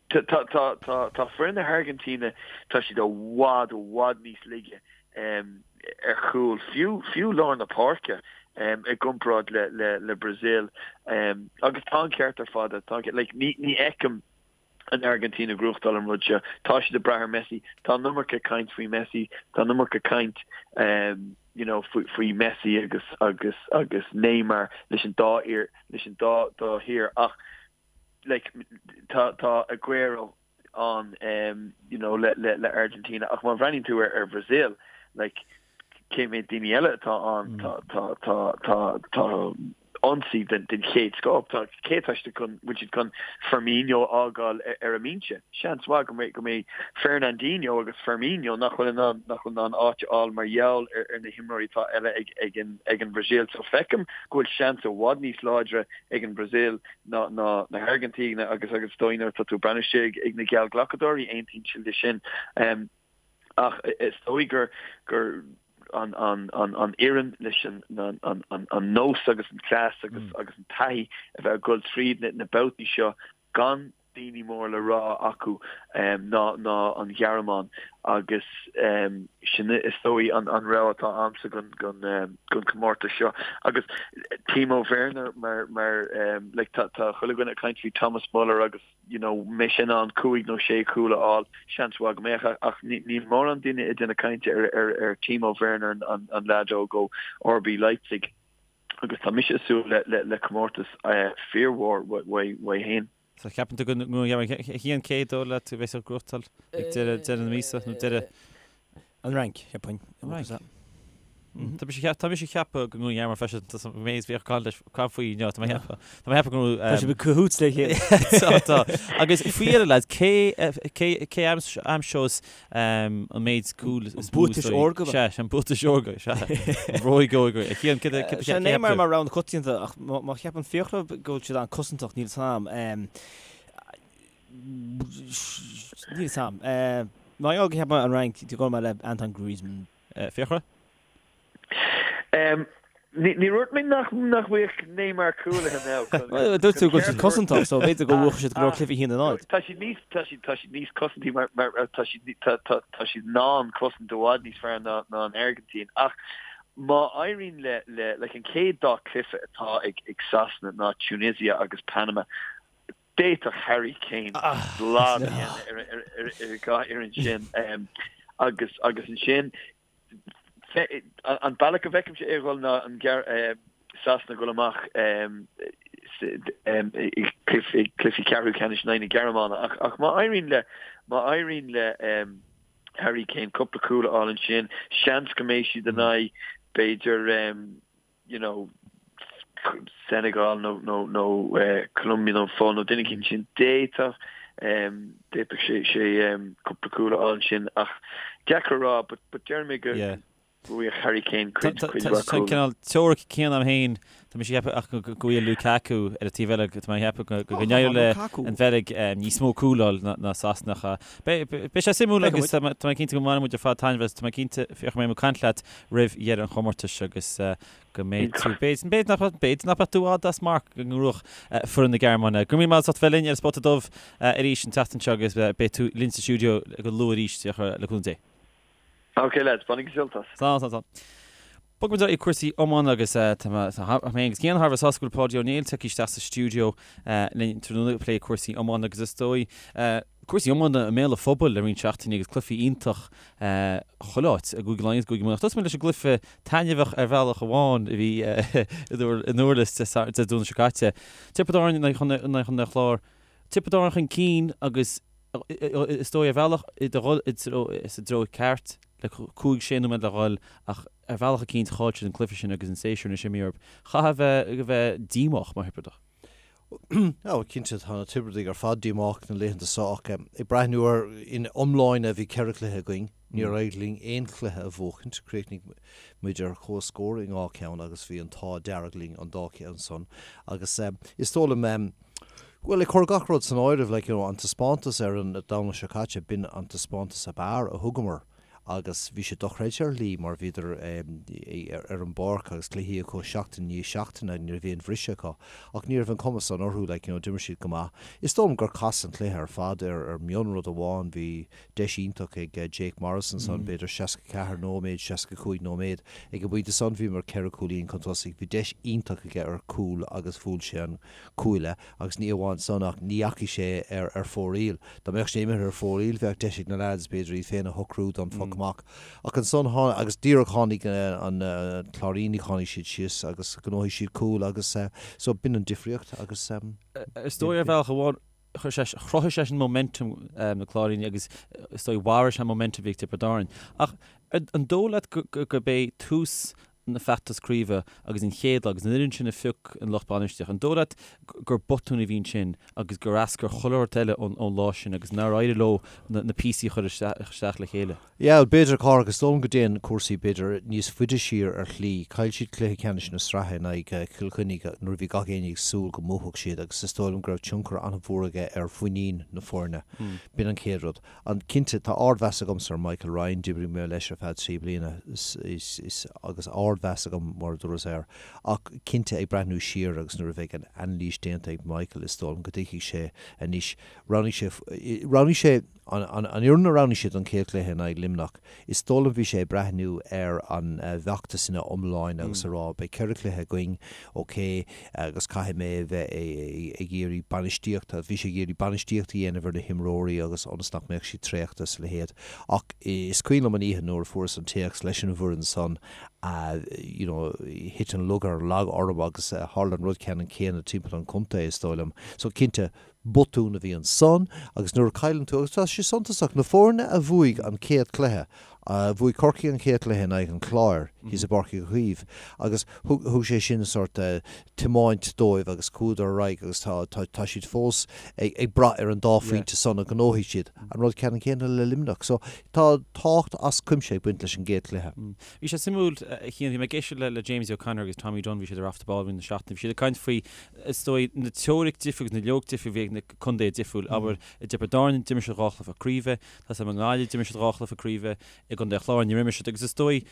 tá, tá, tá, tá, tá foireann na hAirgintíne, tá siad i bhfad, i bhfad níos laige ar chúl, fiú, fiú lár na páirce i gcomparáid le, le, le Brazil. Agus tá an ceart ar fad, tá an ceart, like, ní, ní fheicim, an Airgintín ag gnóthachtáil an rud seo. Tá siad ag brath ar Messi. Tá an iomarca caint faoi Messi. Tá an iomarca caint you know faoi faoi Messi agus agus agus Neymar leis an dá fhir leis an dá dá thír ach like tá tá Aguero ann you know le le le Argentina ach má bhreathnaíonn tú ar ar Brazil like cé mhéad daoine eile atá ann tá tá tá tá tá ionsaí den chéad scoth. Tá cé atá siad chun, bhfuil siad chun Firmino a fhágáil ar an mbinse? Seans mhaith go mbeidh go mbeidh Fernandinho agus Firmino nach bhfuil in ann nach bhfuil in ann áit a fháil mar gheall ar ar na himreoirí atá eile ag ag an ag an Bhrasaíl. So feicim go bhfuil seans i bhfad níos láidre ag an Bhrasaíl ná ná na hAirgintíne agus agus is dóigh nuair atá tú ag breathnú siar ag ag na geallghlacadóirí aontaíonn siad leis sin. Ach is dóigh gur gur an an an an fhoireann leis an an an an nós agus an cleas agus agus an taithí a bheith ag dul tríd na na babhtaí seo gan daoine mór le rá acu ná ná an Ghearmáin agus sin is dóigh an an rogha atá a'msa don don don comórtas seo. Agus Timo Werner mar mar like tá tá chuile dhuine ag caint faoi Thomas Muller agus you know, mbeidh sé in ann cúig nó sé chúl a fháil, seans mhaith go mbeadh, ach níl mórán duine ag déanamh cainte ar, ar, ar Timo Werner, an, an leaid óg ó RB Leipzig, agus tá mise ag súil le, le, le comórtas fíormhór uaidh, uaidh féin. So ceapann tú go a Chian cé dóigh leat a bheas ag gnóthachtáil ag deireadh, deireadh na míosa nó deireadh An Fhrainc, cheapfainn. An Fhrainc. Tá mise tá mise ag ceapadh go nGearmáin freisin tá an méid bhíodh caint leis caint faoi inniu tá mé ag ceapadh tá mé ag ceapadh go Tá sibh ag cahoots le chéile. Tá tá. Agus faoi dheireadh lads cé cé cé aimseos an méid cúl is mó Buatais órga. Sea an buatais órga sea. An bhróig óga. A Chian cé cé Sé Neymar mar rogha na coitianta ach má cheapann Fiachra go bhfuil siad an-cosantach níl 'fhios a'm. Níl 'fhios a'm. Mar gheall go cheapfainn an Fhrainc, gabhfaidh mé le Antoine Griezmann. Fiachra? Ní dúirt mé nach bhfaigheadh Neymar cúlaithe now. Dúirt tú go bhfuil siad cosantach so b'fhéidir go bhuafadh siad go leor cluichí 1-0. Tá siad níos tá siad tá siad níos cosantaí mar mar tá siad tá tá tá siad in ann cosaint i bhfad níos fearr ná ná an Airgintín ach má éiríonn le le like an chéad dá cluiche atá ag ag Sasana ná Tunisia agus Panama D'fhéadfadh Harry Kane slad a dhéanamh ar an dhá fhoireann sin agus agus ansin an bealach a bhfeicimse é a dhul ná an Sasana ag dul amach i gcluichí ceathrú ceannais in aghaidh na Gearmáine ach má éiríonn le má éiríonn le Harry Kane cúpla cúl a fháil ansin seans go mbeidh siad in aghaidh b'fhéidir you know, Senegal nó nó nó Colombia nó an Pholainn nó duine éicint sin d'fhéadfadh d'fhéadfadh sé sé cúpla cúl a fháil ansin ach deacair a rá but but deir mé go Yeah. go bhfaigheadh Harry Kane cuid cuid mhaith Tá an cúl. cineál teoiric céanna agam féin, tá mise ag ceapadh ach go go bhfuil Lukaku ar an taobh eile, tá mé ag ceapadh go go n-éireoidh le Lukaku. an Bheilg níos mó cúl a fháil ná ná Sasana ach beidh beidh sé suimiúil Feicfidh agus tá mé tá mé cinnte go mbainfidh muid ar fad taitneamh as, tá mé cinnte Fiachra go mbeidh mé ag caint leat roimh dheireadh an chomórtais agus go mbeidh tú, b'fhéidir, b'fhéidir nach, b'fhéidir nach mbeadh tú i bhfad as marc go ngnóthódh foireann na Gearmáine. Go raibh míle maith agat as ucht bheith linn ar an Spota Dubh arís an tseachtain seo agus beidh tú linn sa stiúideo go luath arís, le cúnamh Dé. Ok lads, bainigí sult as. Slán, slán, slán. Bogfaidh muid ar aghaidh cúrsaí iomána agus tá mé féin agus Cian thar a bheith sásta go bhfuil Páidí Ó Néill tagtha isteach sa stiúideo linn tráthnóna ag plé cúrsaí iomána agus is dóigh cúrsaí iomána i mbéal an phobail le roinnt seachtainí agus cluichí iontach chuile áit i gCúige Laighean agus i gCúige Mumhan. Ach tosóidh muid leis an gcluiche taitneamhach ar bhealach amháin a bhí i nDurlas Dé Domhnaigh seo caite. Tiobraid Árann in aghaidh Chontae an Chláir. Tiobraid Árann chun cinn agus is dóigh ar bhealach ag dul sa dtreo ceart le 5, 6 nóiméad le dhul ach ar bhealach eicínt chaill siad an cluiche sin agus an séasúr anois imithe orthu. Chaithfeá a bheith díomách mar Thiobradach. Ó, cinnte, tá na Tiobradaigh ar fad díomách na laethanta seo ach ag breathnú air ina iomláine bhí ceithre chluiche againn, níor éirigh linn aon chluiche a bhuachaint, chríochnaigh muid ar comhscór i ndhá cheann agus bhí an t-ádh dearg linn an dá cheann san agus is dóigh liom. Bhuel, ag cur gach rud san áireamh, like, you know, an taispeántas ar an Domhnach seo caite, b'in an taispeántas ab fhearr a thugamar agus bhí sé dochreidte ar shlí mar bhíodar ar an bpáirc agus cluichí acu seachtain i ndiaidh seachtaine, ní raibh aon bhriseadh acu. Ach ní raibh an cuma san orthu, like, you know, d'imir siad go maith. Is dóigh liom gur casadh an cluiche ar fad ar ar mionrud amháin, bhí deis iontach ag Jake Morris ansan, b'fhéidir 64 nóiméad, 65 nóiméad. Ag an bpointe san bhíomar ceithre cúilín chun tosaigh, bhí deis iontach aige ar chúl agus bhuail sé an cuaille agus ní amháin san ach ní dheachaigh sé ar ar fóraoil. Dá mbeadh sé imithe ar fóraoil bheadh deis ag na leaids b'fhéidir iad féin a shocrú don phoc amach. Ach ansan tháinig, agus díreach tháinig an Cláirínigh, tháinig siad síos agus ghnóthaigh siad cúl agus so b'in an difríocht agus. Is dóigh ar bhealach amháin chuir sé, chruthaigh sé sin momentum na Cláirínigh agus is dóigh mharaigh sé an momentum a bhí ag Tiobraid Árann. Ach an dóigh leat gurb é tús na feachtas craoibhe agus an chéad lá agus an fhoireann sin a phioc an lucht bainistíochta, an dóigh leat gur botún a bhí ansin agus gur eascair chuile shórt eile ón lá sin agus nár éirigh leo na píosaí a chur isteach le chéile? Yeah, b'fhéidir, a Chárthaigh, is dóigh liom go dtéann cúrsaí b'fhéidir níos faide siar ar shlí. Chaill siad cluiche ceannais na sraithe in aghaidh Chill Chainnigh nuair a bhí gach éinne ag súil go mbuafadh siad agus is dóigh liom go raibh tionchar an-mhór aige ar mhuinín na foirne. B'in an chéad rud. An, cinnte, tá ardmheas agamsa ar Michael Ryan, d'oibrigh mé leis ar feadh 3 bliana is agus ardmheas agam, mar a dúras, air. Ach cinnte, ag breathnú siar agus nuair a bheidh an anailís déanta ag Michael, is dóigh liom go dtuigfidh sé anois, roghnaigh sé, roghnaigh sé, an, an, an fhoireann a roghnaigh sé don chéad chluiche in aghaidh Luimneach, is dóigh liom bhí sé ag breathnú ar an bhfeachtas ina iomláine agus a rá, beidh 4 chluiche againn, ok, agus caithfidh mé a bheith ag iarraidh bainistíocht, bhí sé ag iarraidh bainistíocht a dhéanamh ar na himreoirí agus ionas nach mbeadh siad traochta is a leithéid. Ach is cuimhin liom an oíche nuair a fuaireas an téacs leis an bhfoireann san, you know, thit an lúcháir lag orm agus tharla an rud ceannann céanna timpeall an chontae, is dóigh liom. So cinnte, botún a bhí ansan agus nuair a chailleann tú, agus tá sé suntasach, na foirne a bhuaigh an chéad chluiche, bhuaigh Corcaigh an chéad chluiche in aghaidh an Chláir thíos i bPáirc Uí Chaoimh agus thug, thug sé sin sórt tiomáint dóibh agus chuadar ar aghaidh agus tá, tá, tá siad fós ag, ag brath ar an dá phointe san a ghnóthaigh siad. An rud ceannann céanna le Luimneach. So tá tábhacht as cuimse ag baint leis an gcéad chluiche. Bhí sé suimiúil, a Chian, bhí mé ag éisteacht le, le Jamesie O'Connor agus Tommy Dunne, bhí siad ar Off the Ball i rith na seachtaine, bhí siad ag caint faoi is dóigh, na teoiric difriúil agus na loighic difriúil a bhí ag na contaetha difriúil. Abair, i dTiobraid Árann, d'imir siad dhá chluiche craoibhe, tá 's agam i nGaillimh, d'imir siad dhá chluiche craoibhe, i gContae an Chláir, níor imir siad, agus is dóigh,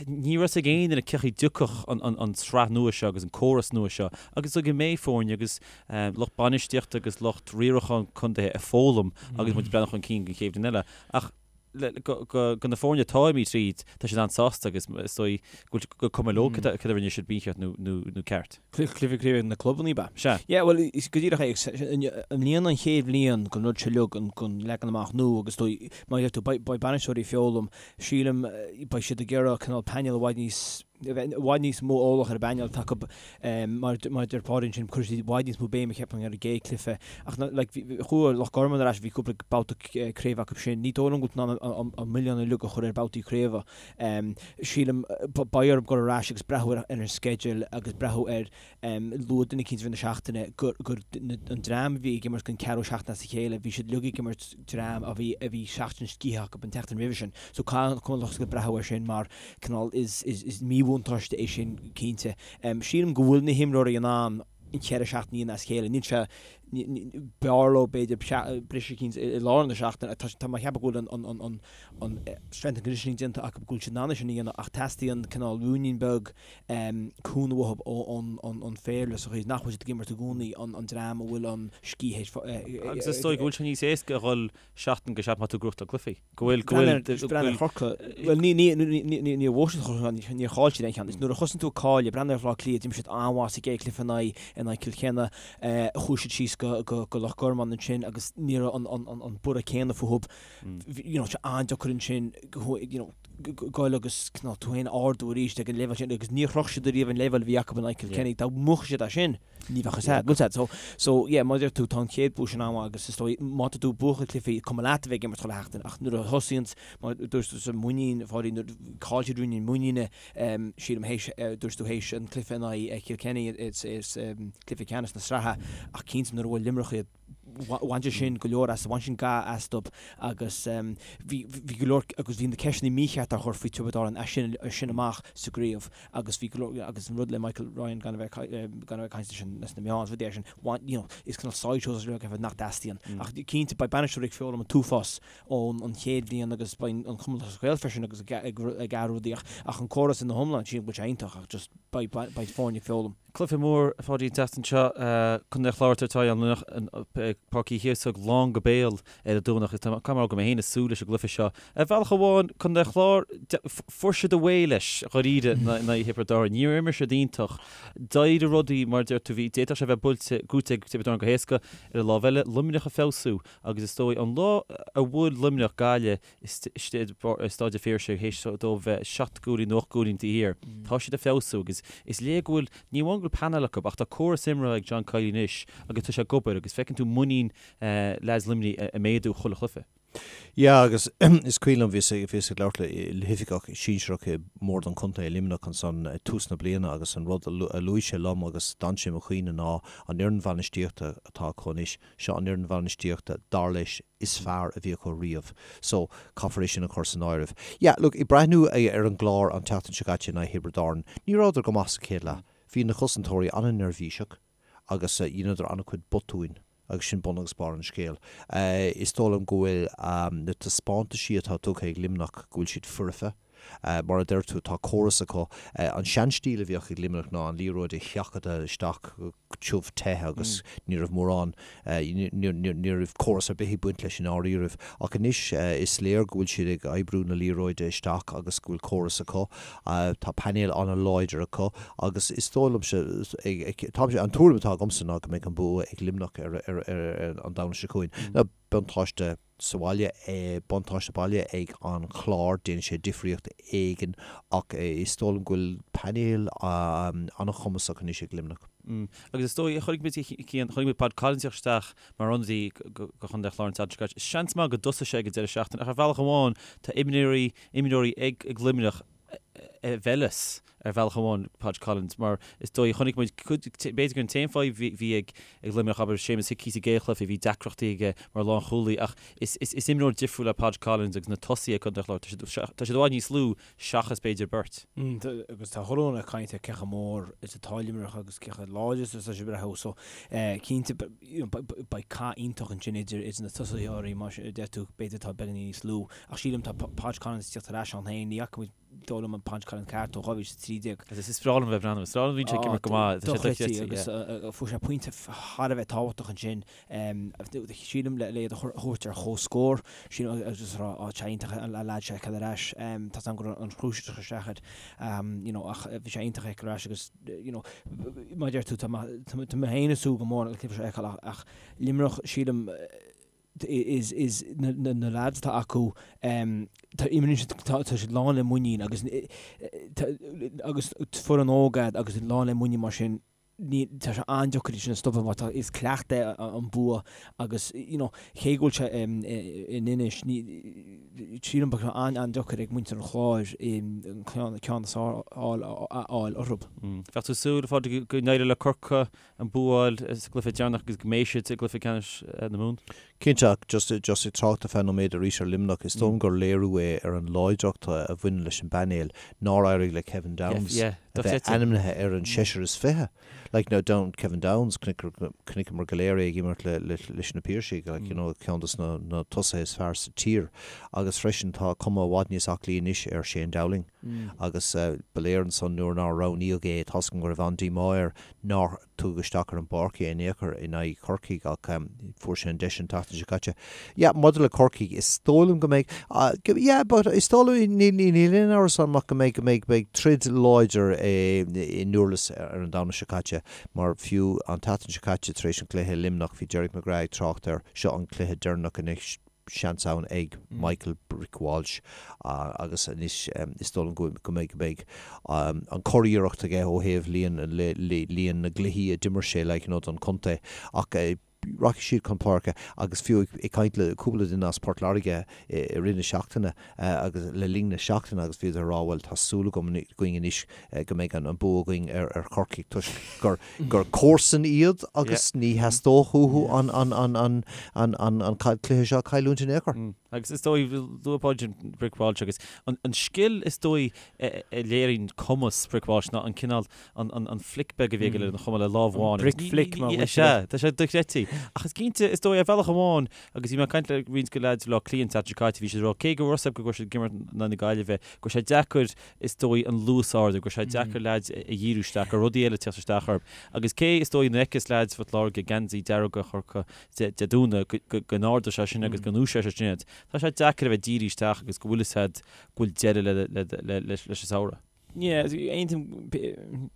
ní raibh 's ag aon duine cén chaoi a dtiocfadh an tsraith nua seo agus an córas nua seo, agus is dóigh go mbeidh foirne agus lucht bainistíochta agus lucht riaracháin contaetha ag foghlaim agus muid ag breathnú chun cinn don chéad bhliain eile. Ach go na foirne atá imithe tríd, tá siad an-sásta agus is dóigh go bhfuil gur cuma leo cad a rinne siad mícheart nó ceart. Cluiche craoibhe na clubanna, ab ea? Sea. Yeah, bhuel, is go díreach é. I mbliana an chéad bhliain den rud seo uilig, den leagan amach nua agus is dóigh, mar a deir tú, beidh bainisteoirí ag foghlaim, sílim, beidh siad ag iarraidh cineál painéal i bhfad níos, a bheith i bhfad níos mó eolach ar an bpainéal atá acu mar a deir Pádraig ansin cuirfidh siad i bhfad níos mó béime cheapfainn ar an gcéad cluiche ach like chuaigh Loch Garman ar ais bhí cúpla babhta craoibhe acu sin ní dóigh liom go bhfuil tú in ann an milleán uilig a chur ar babhtaí craoibhe sílim beidh orthu dul ar ais agus breathnú ar an sceideal agus breathnú ar Luaigh duine eicínt i rith na seachtaine gur an dream a bhí ag imirt don ceathrú seachtain as a chéile, bhí siad uilig ag imirt dream a bhí a bhí seachtain scíthe acu an tseachtain roimhe sin. So caithfidh an lucht breathnú air sin mar cineál is is míbhuntáiste é sin cinnte. Sílim go bhfuil na himreoirí in ann an cheithre seachtaine a dhéanamh as a chéile. Níl sé b'fhearr leo b'fhéidir briseadh eicínt i lár na seachtaine. Tá mé ag ceapadh go bhfuil an an an strength and conditioning déanta acu go bhfuil siad in ann é sin a dhéanamh ach teastaíonn cineál ruainnín beag cúnamh uathu ón bhféile sa chaoi is nach bhfuil siad ag imirt i gcónaí an dream a bhfuil an scíth Agus is dóigh go bhfuil sé níos éasca a dhul seachtain go seachtain má tá tú ag gnóthachtáil cluichí. Go bhfuil, go bhfuil, go bhfuil. Chorcaigh, bhuel ní, ní, ní, ní, níor bhuaigh siad Chorcaigh, níor chaill siad aon cheann. Is nuair a thosaíonn tú ag cailleadh, breathnaigh ar Bhaile Átha Cliath, d'imir siad an-mhaith sa gcéad chluiche in aghaidh, in aghaidh Cill Chainnigh, chuaigh siad síos go, go, go Loch Garman ansin agus ní raibh an, an, an, an borradh céanna fúthu. You know, sé an-deacair ansin, you know, goil agus cineál tú féin a ardú arís ag an leibhéal sin agus níor shroich siad ariamh an leibhéal a bhí acu in aghaidh Kilkenny. Dá mbuafadh siad é sin, ní bheadh fhios agat, bhfuil fhios agat. So, so yeah, mar a deir tú, tá an chéad bua sin an-mhaith agus is dóigh, má tá tú ag buachan cluichí, cuma leat a bheith ag imirt chuile sheachtain ach nuair a thosaíonns, mar a dúirt tusa, muinín, a Pháidí, nuair a chaill siad ruainnín muiníne, sílim, théis, dúirt tú théis an cluiche in aghaidh Kilkenny, is, is cluiche ceannais na sraithe ach cinnte nuair a bhuail Luimneach iad. Bhain sé sin go leor as, bhain sin ga astu agus bhí bhí go leor agus bhí na ceisteanna mícheart á chur faoi Tiobraid Árann as sin as sin amach sa gcraobh agus bhí go leor agus an rud le Michael Ryan gan a bheith gan a bheith ag caint leis an leis na meáin is rudaí mar sin bhain you know is cineál sideshows is rud nach dteastaíonn ach cinnte beidh bainisteoirí ag foghlaim an t-uafás ón an chéad bhliain agus beidh an Cumann Lúthchleas Gael freisin agus ag ag ag athrú rudaí ach ach an córas ina hiomlán sílim go bhfuil sé iontach ach just beidh beidh foirne ag foghlaim. Cluiche mór, a Pháidí, an tseachtain seo. Contae an Chláir ag tabhairt aghaidh ar Luimneach i Páirc Uí Chíosóg lán go béal ar an Domhnach. Is tá cuma go mé féin ag súil leis an gcluiche seo. Ar bhealach amháin, Contae an Chláir, fuair siad away leis dháiríre in aghaidh Thiobraid Árann. Níor imir siad iontach. D'éirigh rudaí, mar a deir tú, bhí, d'fhéadfadh sé a bheith buailte, gnóite ag Tiobraid Árann go héasca. Ar an lámh eile, Luimneach ag feabhsú agus is dóigh an lá a bhuail Luimneach Gaillimh, istigh i Staid an Phiarsaigh théis dóibh bheith 7 gcúilín nó 8 gcúilín taobh thiar. Tá siad ag feabhsú agus is léir go bhfuil, ní amháin go bhfuil painéal acu ach tá córas imeartha ag John Kiely anois agus tá sé ag obair agus feiceann tú muinín leaids Luimnigh ag méadú chuile chluiche. Yeah agus is cuimhin liom bhíos bhíos ag labhairt le hoifigeach sinsearach i mbord an chontae i Luimneach ansan ag tús na bliana agus an rud a luaigh sé liom agus d'fhan sé i mo chuimhne ná an fhoireann bhainistíochta atá acu anois, seo an fhoireann bhainistíochta dar leis is fearr a bhí acu riamh. So, caithfear é sin a chur san áireamh. Yeah, look, ag breathnú ar an gClár an tseachtain seo caite in aghaidh Thiobraid Árann, ní rabhadar go maith sa chéad leath. Bhí na cosantóirí an-neirbhíseach agus dheineadar an-chuid botúin agus sin bun agus barr an scéil. Is dóigh liom go bhfuil na taispeántaisí atá tugtha ag Luimneach, go bhfuil siad foirfe. Mar a deir tú, tá córas acu. An seanstíl a bhíodh ag Luimneach ná an liathróid a sheachadadh isteach go tiubh te agus ní raibh mórán, ní raibh córas ar bith ag baint leis i ndáiríribh. Ach anois is léir go bhfuil siad ag oibriú na liathróide isteach agus go bhfuil córas acu. Tá painéal an-láidir acu agus is dóigh liomsa, táimse, an tuairim atá agamsa ná go mbeidh an bua ag Luimneach ar an Domhnach seo chugainn. Buntáiste. sa bhaile, buntáiste baile ag an Chlár, déanann sé difríocht éigin ach is dóigh liom go bhfuil painéal an-chumasach anois ag Luimneach. Agus is dóigh, chonaic muid, Cian, chonaic muid Pod Collins ag teacht isteach mar ionadaí do Chontae an Chláir an tseachtain seo caite. Seans maith go dtosóidh sé ag an deireadh seachtaine ach ar bhealach amháin tá imreoirí, imreoirí ag Luimneach a mheilfeas ar bhealach amháin Podge Collins mar is dóigh chonaic muid cuid, b'fhéidir gur an t-aon fadhb a bhí ag Luimneach, abair Séamus Hickey sa gcéad chluiche, bhí deacrachtaí aige mar lánchúlaí ach is, is, is imreoir difriúil é Podge Collins agus na tosaithe ag Contae an Chláir, tá siad, tá siad i bhfad níos lú seachas b'fhéidir beirt. Agus tá chuile dhuine ag caint ar cé chomh mór is atá Luimneach agus cé chomh láidir is atá siad ag breathnú so cinnte beidh cath iontach ansin idir, idir na tosaitheoirí mar a deir tú b'fhéidir atá beagáinín níos lú ach sílim tá Podge Collins ag teacht ar ais ann féin, ní fhaca muid dóigh liom an Podge Collins ceart ó 2013. Agus is breá liom a bheith ag breathnú, is breá liom bhíonn sé ag imirt go maith, tá sé dochreidte, agus fuair sé pointe thar a bheith tábhachtach ansin, sílim le iad a thabhairt ar chomhscór, sílim agus rá á tá sé iontach an leaid seo a fheiceáil ar ais, tá 's agam go raibh an chrois isteach air, you know ach bhí sé iontach a fheiceáil ar ais agus you know mar a deir tú tá mé féin ag súil go mór le cluiche seo a fheiceáil ach Luimneach sílim is is na na lads atá acu tá imríonn siad tá tá siad lán le muinín agus agus foireann óg iad agus lán le muinín mar sin ní tá sé an-deacair iad sin a stopadh mar tá is cleachtadh é an bua agus you know cé go bhfuil sé in Inis ní sílim beidh sé an-an-deacair ag muintir an Chláir an ceann ceann is fearr a fháil orthu. Bheadh tú ag súil, a Phádraig, go n-éireodh le Corcaigh an bua a fháil sa gcluiche deireanach agus go mbeidh siad i gcluiche ceannais na Mumhan. Cinnte, ach just just ag trácht ar feadh nóiméad arís ar Luimneach, is dóigh liom gur léiriú é ar an láidreacht a bhaineann leis an bpainéal nár éirigh le Kevin Downes a bheith ainmnithe ar an seisear is 20. Like now Down, Kevin Downes, chonaiceamar go léir é ag imirt le leis na Piarsaigh, like you know, ceann dos na na tosaithe is fearr sa tír. Agus freisin tá cuma i bhfad níos aclaí anois ar Shane Dowling. Agus ba léir ansan nuair nár roghnaíodh é, tá's agam go raibh an-díomá air nár tugadh isteach ar an bpáirc é in aon chor in aghaidh Chorcaigh ach fuair sé an deis an tseachtain seo caite. Yeah, maidir le Corcaigh, is dóigh liom go mbeidh, yeah, but is dóigh liom, níl aon amhras agam ach go mbeidh, go mbeidh, beidh troid láidir i nDurlas ar an Domhnach seo caite mar fiú an tseachtain seo caite tar éis an chluiche i Luimneach bhí Derek McGrath ag trácht air, seo an cluiche deireanach anois, seans ann ag Michael Brick Walsh agus anois is dóigh liom go mbeidh go mbeidh an curiarracht aige ó thaobh líon líon na gcluichí a d'imir sé like you know don chontae ach. Rachaidh siad chun páirce agus fiú ag caint le cúpla duine as Port Láirge i rith na seachtaine agus le linn na seachtaine agus bhíodar ag rá bhuel tá súil agam againn anois go mbeidh an bua againn ar Chorcaigh toisc gur gur comharsain iad agus ní theastódh uathu an an an an an an an cluiche seo a chailliúint in aon chor. Agus is dóigh, luaigh Páidí Brick Walsh agus an an scil is dóigh a léiríonn cumas Brick Walsh ná an cineál an flic beag a bhí aige lena chuma le lámh amháin. Brick flick mar a Sea, tá sé dochreidte. Ach is cinnte, is dóigh, ar bhealach amháin, agus bhí mé ag caint le roinnt de leaids Bhaile Átha Cliath an tseachtain seo caite, bhí siad ag rá, cé go raibh a fhios acu go raibh siad ag imirt in aghaidh na Gaillimhe, go raibh sé deacair, is dóigh, an luas a ardú, go raibh sé deacair leaids a dhíriú isteach, go raibh rudaí eile ag teacht isteach orthu. Agus cé, is dóigh, nuair a fheiceas leaids Phort Láirge geansaí dearg a chur acu Dé Domhnaigh, go n-ardóidh sé sin agus go ndúiseoidh sé sin iad. Tá sé deacair a bheith dírithe isteach agus go bhfuil fhios agat go bhfuil deireadh leis an samhradh. Yeah, aontaím,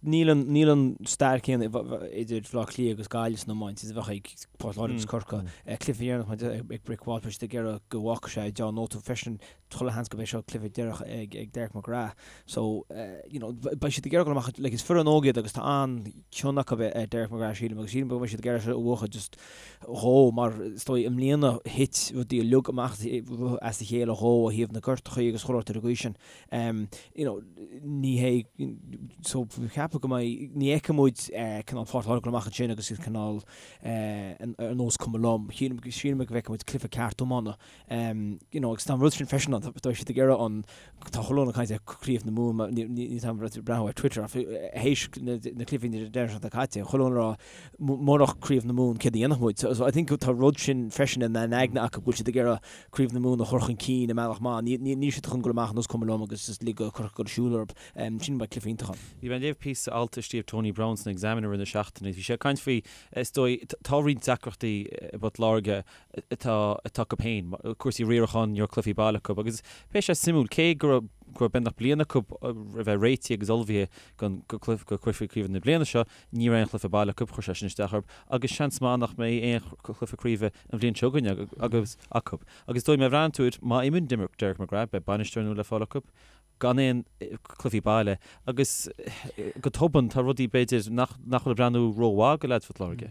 níl an, níl an stair céanna idir Bhaile Átha Cliath agus Gaillimh san iomáint is a bheadh ag Port Láirge agus Corcaigh. Cluiche deireanach mar ag Brick Walsh, beidh siad ag iarraidh go bhfágfaidh sé deá-nóta freisin, chuile sheans go mbeidh seo cluiche deireanach ag ag Derek McGrath. So, you know, beidh siad ag iarraidh dul amach, like, is foireann óg iad agus tá an-chion acu ar Derek McGrath sílim agus sílim go mbeidh siad ag iarraidh seo a bhuachan just dhó mar is dóigh i mbliana thit rudaí uilig amach as a chéile dhó ó thaobh na gortachaí agus chuile shórt ar an gcaoi sin. You know, ní hé, so ceapaim go mbeidh, ní fheicfidh muid cineál Port Láirge amach ansin agus iad cineál ar nós cuma liom. Sílim go bhfeicfidh muid cluiche ceart iomána. You know, agus tá an rud sin freisin ann, tá siad ag iarraidh an, tá chuile dhuine ag caint ar Craobh na Mumhan, ní táim ag breathnú ar Twitter ach théis na cluichí na deireadh seachtaine caite, chuile dhuine ag rá murach Craobh na Mumhan céard a dhéanfadh muid? So I think tá rud sin freisin ina n-aigne acu go bhfuil siad ag iarraidh Craobh na Mumhan a chur chun cinn i mbealach maith. Níl siad chun dul amach ar nós cuma liom agus just lig do Chorcaigh dul ag siúl orthu. Sin beidh cluiche iontach ann. Bhí mé ag léamh píosa alt a scríobh Tony Browne san Examiner i rith na seachtaine. Bhí sé ag caint faoi, is dóigh, tá roinnt deacrachtaí i bPort Láirge atá atá acu féin, cúrsaí riaracháin, ní raibh cluichí baile acu agus beidh sé suimiúil, cé go raibh go raibh beagnach bliain acu a bheith réitithe agus ullmhaithe don go cluiche craoibhe na bliana seo, Ní raibh aon chluiche baile acu, chuir sé sin isteach orthu agus seans maith nach mbeidh aon chluiche craoibhe an bhliain seo chugainn agus acu. Agus is dóigh má bhreathnaíonn tú air, má imíonn Derek McGrath, beidh bainisteoir nua le fáil acu, gan aon chluichí baile agus go tobann tá rudaí b'fhéidir nach nach bhfuil ag breathnú rómhaith do leaids Phort Láirge.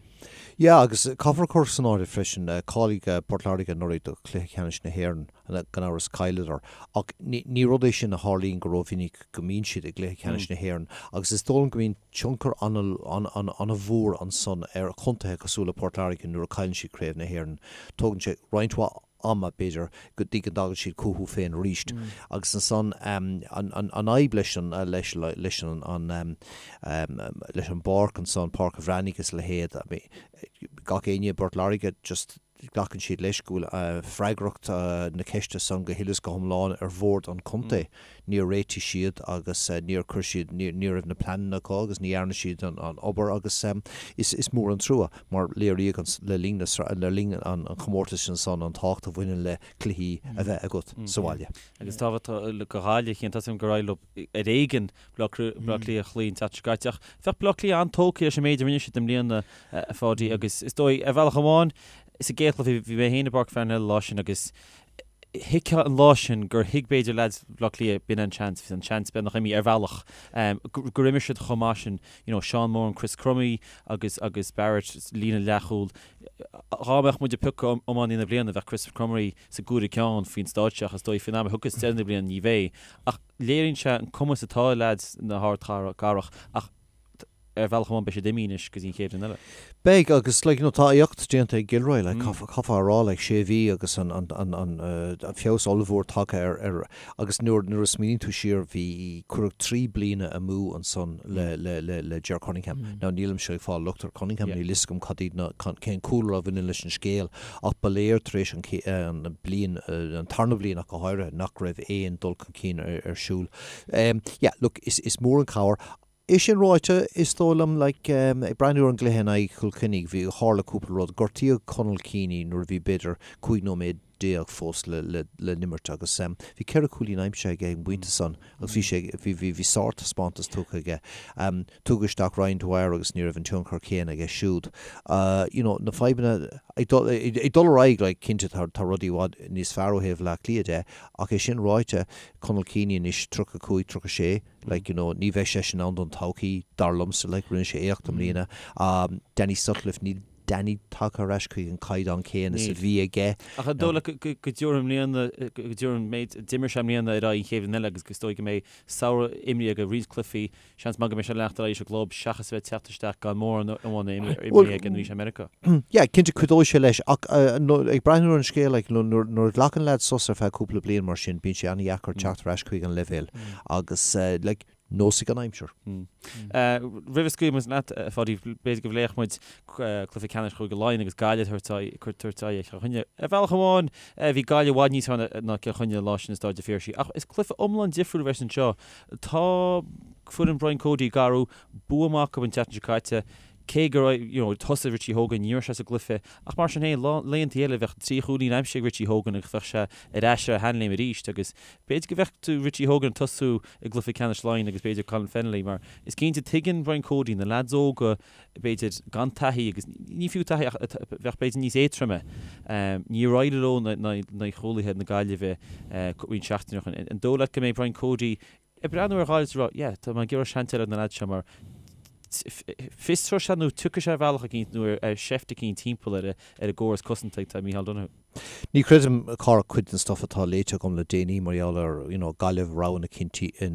Yeah agus caithfear cur san áireamh freisin, cháiligh Port Láirge anuraidh do chluiche ceannais na hÉireann. Gan amhras, chailleadar. Ach ní rud é sin a tharlaíonn go rómhinic go mbíonn siad i gcluiche ceannais na hÉireann agus is dóigh liom go mbíonn tionchar an-mhór ansan ar chontaetha cosúil le Port Láirge nuair a chailleann siad Craobh na hÉireann. Tógann sé roinnt mhaith ama, b'fhéidir, go dtí go dtagann siad chucu féin arís. Agus ansan an fhadhb leis an leis an leis an bpáirc ansan, Páirc an Bhreathnaigh agus a leithéid, gach éinne i bPort Láirge just, Glacann siad leis go bhfuil freagracht na ceiste san go huile is go hiomlán ar bhord an chontae. Níor réitigh siad agus níor chuir siad, ní raibh na pleananna acu agus ní dhearna siad an obair agus is mór an trua mar léiríodh le linn le linn an chomórtais ansan an tábhacht a bhaineann le cluichí a bheith agat sa bhaile. Agus tábhacht do Ghaillimh, tá a fhios agam gur éirigh leo ar éigean Baile Átha Cliath a chloí an tseachtain seo caite ach bheadh Baile Átha Cliath an-tógtha leis an méid a rinne siad i mbliana, a Pháidí, agus is dóigh, ar bhealach amháin, sa gcéad chluiche, bhí mé féin i bPáirc Pharnell an lá sin agus thuigfeá an lá sin gur thuig b'fhéidir leaids Bhaile Átha Cliath, b'in an seans, bhí an seans beagnach imithe ar bhealach, gur imir siad chomh maith sin, you know, Seán Moran, Chris Crummey agus agus Barrett, líne leathchúil. Dhá mbeadh muid ag piocadh iománaí na bliana, bheadh Chris Crummey sa gcúigiú ceann faoin stáitse ach is dóigh faoin am a thiocfas deireadh na bliana ní bheidh. Ach léiríonn sé an cumas atá ag leaids na hardchathrach ach ar bhealach amháin beidh siad imithe anois go dtí an chéad bhliain eile. Beidh agus like you know tá éacht déanta ag Gilroy like caithfear a rá like sé mhí agus an an an an feabhas ollmhór tagtha ar ar agus nuair nuair a smaoiníonn tú siar bhí cuireadh 3 bliana amú ansan le le le le Ger Cunningham. Now nílimse ag fáil locht ar Cunningham níl fhios agam cad iad na cén cúlra a bhaineann leis an scéal ach ba léir tar éis an an bliain an tarna bliain ach go háirithe nach raibh aon dul chun cinn ar ar siúl. Yeah look is is mór an cabhair É sin ráite, is dóigh liom, like, ag breathnú ar an gcluiche in aghaidh Chill Chainnigh, bhí, tharla cúpla rud. Gortaíodh Conal Keaney nuair a bhí b'fhéidir 15 nóiméad fós le, le, le n-imirt agus bhí ceithre chúilín aimsithe aige ag an bpointe san agus bhí sé, bhí, bhí, bhí sártaispeántas tugtha aige. Tugadh isteach Ryan Dwyer agus ní raibh an tionchar céanna aige siúd. You know, na fadhbanna, ag dul, ag dul ar aghaidh, like, cinnte tá, tá rudaí i bhfad níos fearr ó thaobh Bhaile Átha Cliath de ach é sin ráite, Conal Keaney anois 35, 36, Like, you know, ní bheidh seisean ann don todhchaí, dar liomsa, like, rinne sé éacht i mbliana. Danny Sutcliffe, níl Danny tagtha ar ais chuig an caighdeán céanna is a bhí aige. Ach an dóigh leat go dtabharfaidh i mbliana, go dtabharfaidh an méid a d'imir sé i mbliana ar aghaidh an chéad bhliain eile agus is dóigh go mbeidh samhradh imeartha aige, roinnt cluichí, seans maith go mbeidh sé ag leanacht ar aghaidh sa gclub seachas a bheith ag teacht isteach gan mórán imeartha aige nuair a bhí sé i Meiriceá. Yeah, cinnte cuideoidh sé leis ach ag breathnú ar an scéal like nuair a ghlacann leaid sos ar feadh cúpla bliain mar sin bíonn sé an-dheacair teacht ar ais chuig an leibhéal agus like nós ag an aimsir. Roimh a scaoilfidh muid leat, a Pháidí, b'fhéidir go bpléifeadh muid cluiche ceannais Chúige Laighean agus Gaillimh ag tabhairt aghaidh ar Chill Chainnigh. Ar bhealach amháin, bhí Gaillimh i bhfad níos fearr ná Cill Chainnigh an lá sin i Stáid an Phiarsaigh, ach is cluiche iomlán difriúil a bheas anseo. Tá foireann Brian Cody ag athrú, bua maith acu an tseachtain seo caite, cé gur you know thosaigh Richie Hogan, ní raibh sé sa gcluiche, ach mar sin féin, laethanta eile bheadh trí chúilín aimsithe ag Richie Hogan agus bheadh sé ar ais ar a sheanléim arís agus b'fhéidir go bhfeicfidh tú Richie Hogan ag tosú i gcluiche ceannais Laighean agus b'fhéidir Colin Fennelly mar is cinnte tuigeann Brian Cody na leaids óga b'fhéidir gan taithí agus ní fiú taithí ach bheadh b'fhéidir níos éadtroime. Níor éirigh leo in aghaidh chúlaithe na Gaillimhe roinnt seachtainí ó shin. An dóigh leat go mbeidh Brian Cody ag breathnú ar Ghaillimh is ag rá yeah tá mé ag iarraidh seans eile ar na leaids seo mar fiosróidh sé nó tiocfaidh sé ar bhealach eicínt nó ar sheift eicínt timpeall ar an gcóras cosanta atá ag Micheál Donoghue. Ní chreidim, a chara, cuid den stuff atá léite agam le déanaí mar gheall ar, you know, Gaillimh, rogha na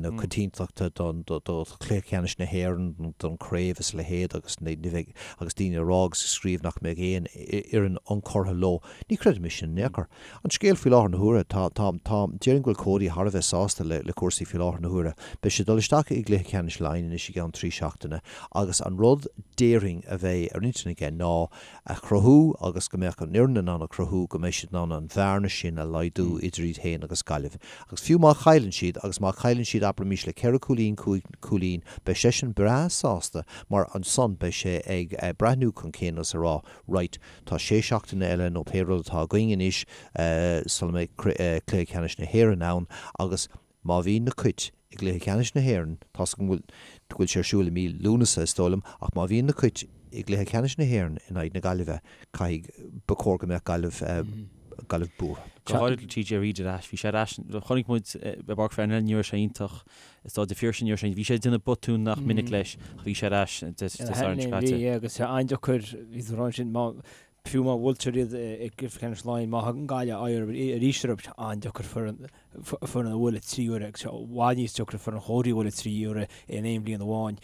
na coitiantachta don, do, do chluiche ceannais na hÉireann, don chraobh is a leithéid agus ní bheidh, agus daoine ag rá agus ag scríobh nach mbeidh aon fhoireann ionchurtha leo. Ní chreidim é sin in aon chor. An scéal faoi láthair na huaire, tá, tá, tá, déarfainn go bhfuil Cody thar a bheith sásta le, le cúrsaí faoi láthair na huaire. Beidh sé ag dul isteach i gcluiche ceannais Laighean anois i gceann trí seachtaine agus an rud déarfainn a bheidh ar intinn aige ná a chruthú agus go mbeadh an fhoireann in ann a chruthú go mbeidh siad in ann an bhearna sin a laghdú idir iad féin agus Gaillimh. Agus fiú má chailleann siad, agus má chailleann siad abraimis le ceithre cúilín, cúig chúilín, beidh seisean breá sásta mar ansan beidh sé ag breathnú chun cinn agus ag rá right, tá sé seachtaine eile nó pé rud atá againn anois sula mbeidh Cluiche Ceannais na hÉireann ann agus Má bhíonn na Cait i gcluiche ceannais na hÉireann, tá's agam go bhfuil sé ar siúl i mí Lúnasa is dóigh liom, ach má bhíonn na Cait i gcluiche ceannais na hÉireann in aghaidh na Gaillimhe, caithfidh, ba chóir go mbeadh Gaillimh, Gaillimh buartha. Go háirid le TJ Reid ar ais. Bhí sé ar ais, chonaic muid i bPáirc Pharnell ní raibh sé iontach, i Stáid an Phiarsaigh ní raibh sé, bhí sé ag déanamh botún nach minic leis ach bhí sé ar ais Dé Sathairn seo caite. Bhí, agus sé an-deacair, bhí tú ag rá ansin, má, Fiú má bhuailtear iad i gcluiche ceannais Laighean, má thagann Gaillimh aghaidh orthu arís orthu, tá sé an-deacair foireann a bhualadh trí huaire agus i bhfad níos deacra foireann Chody a bhualadh trí huaire in aon bhliain amháin.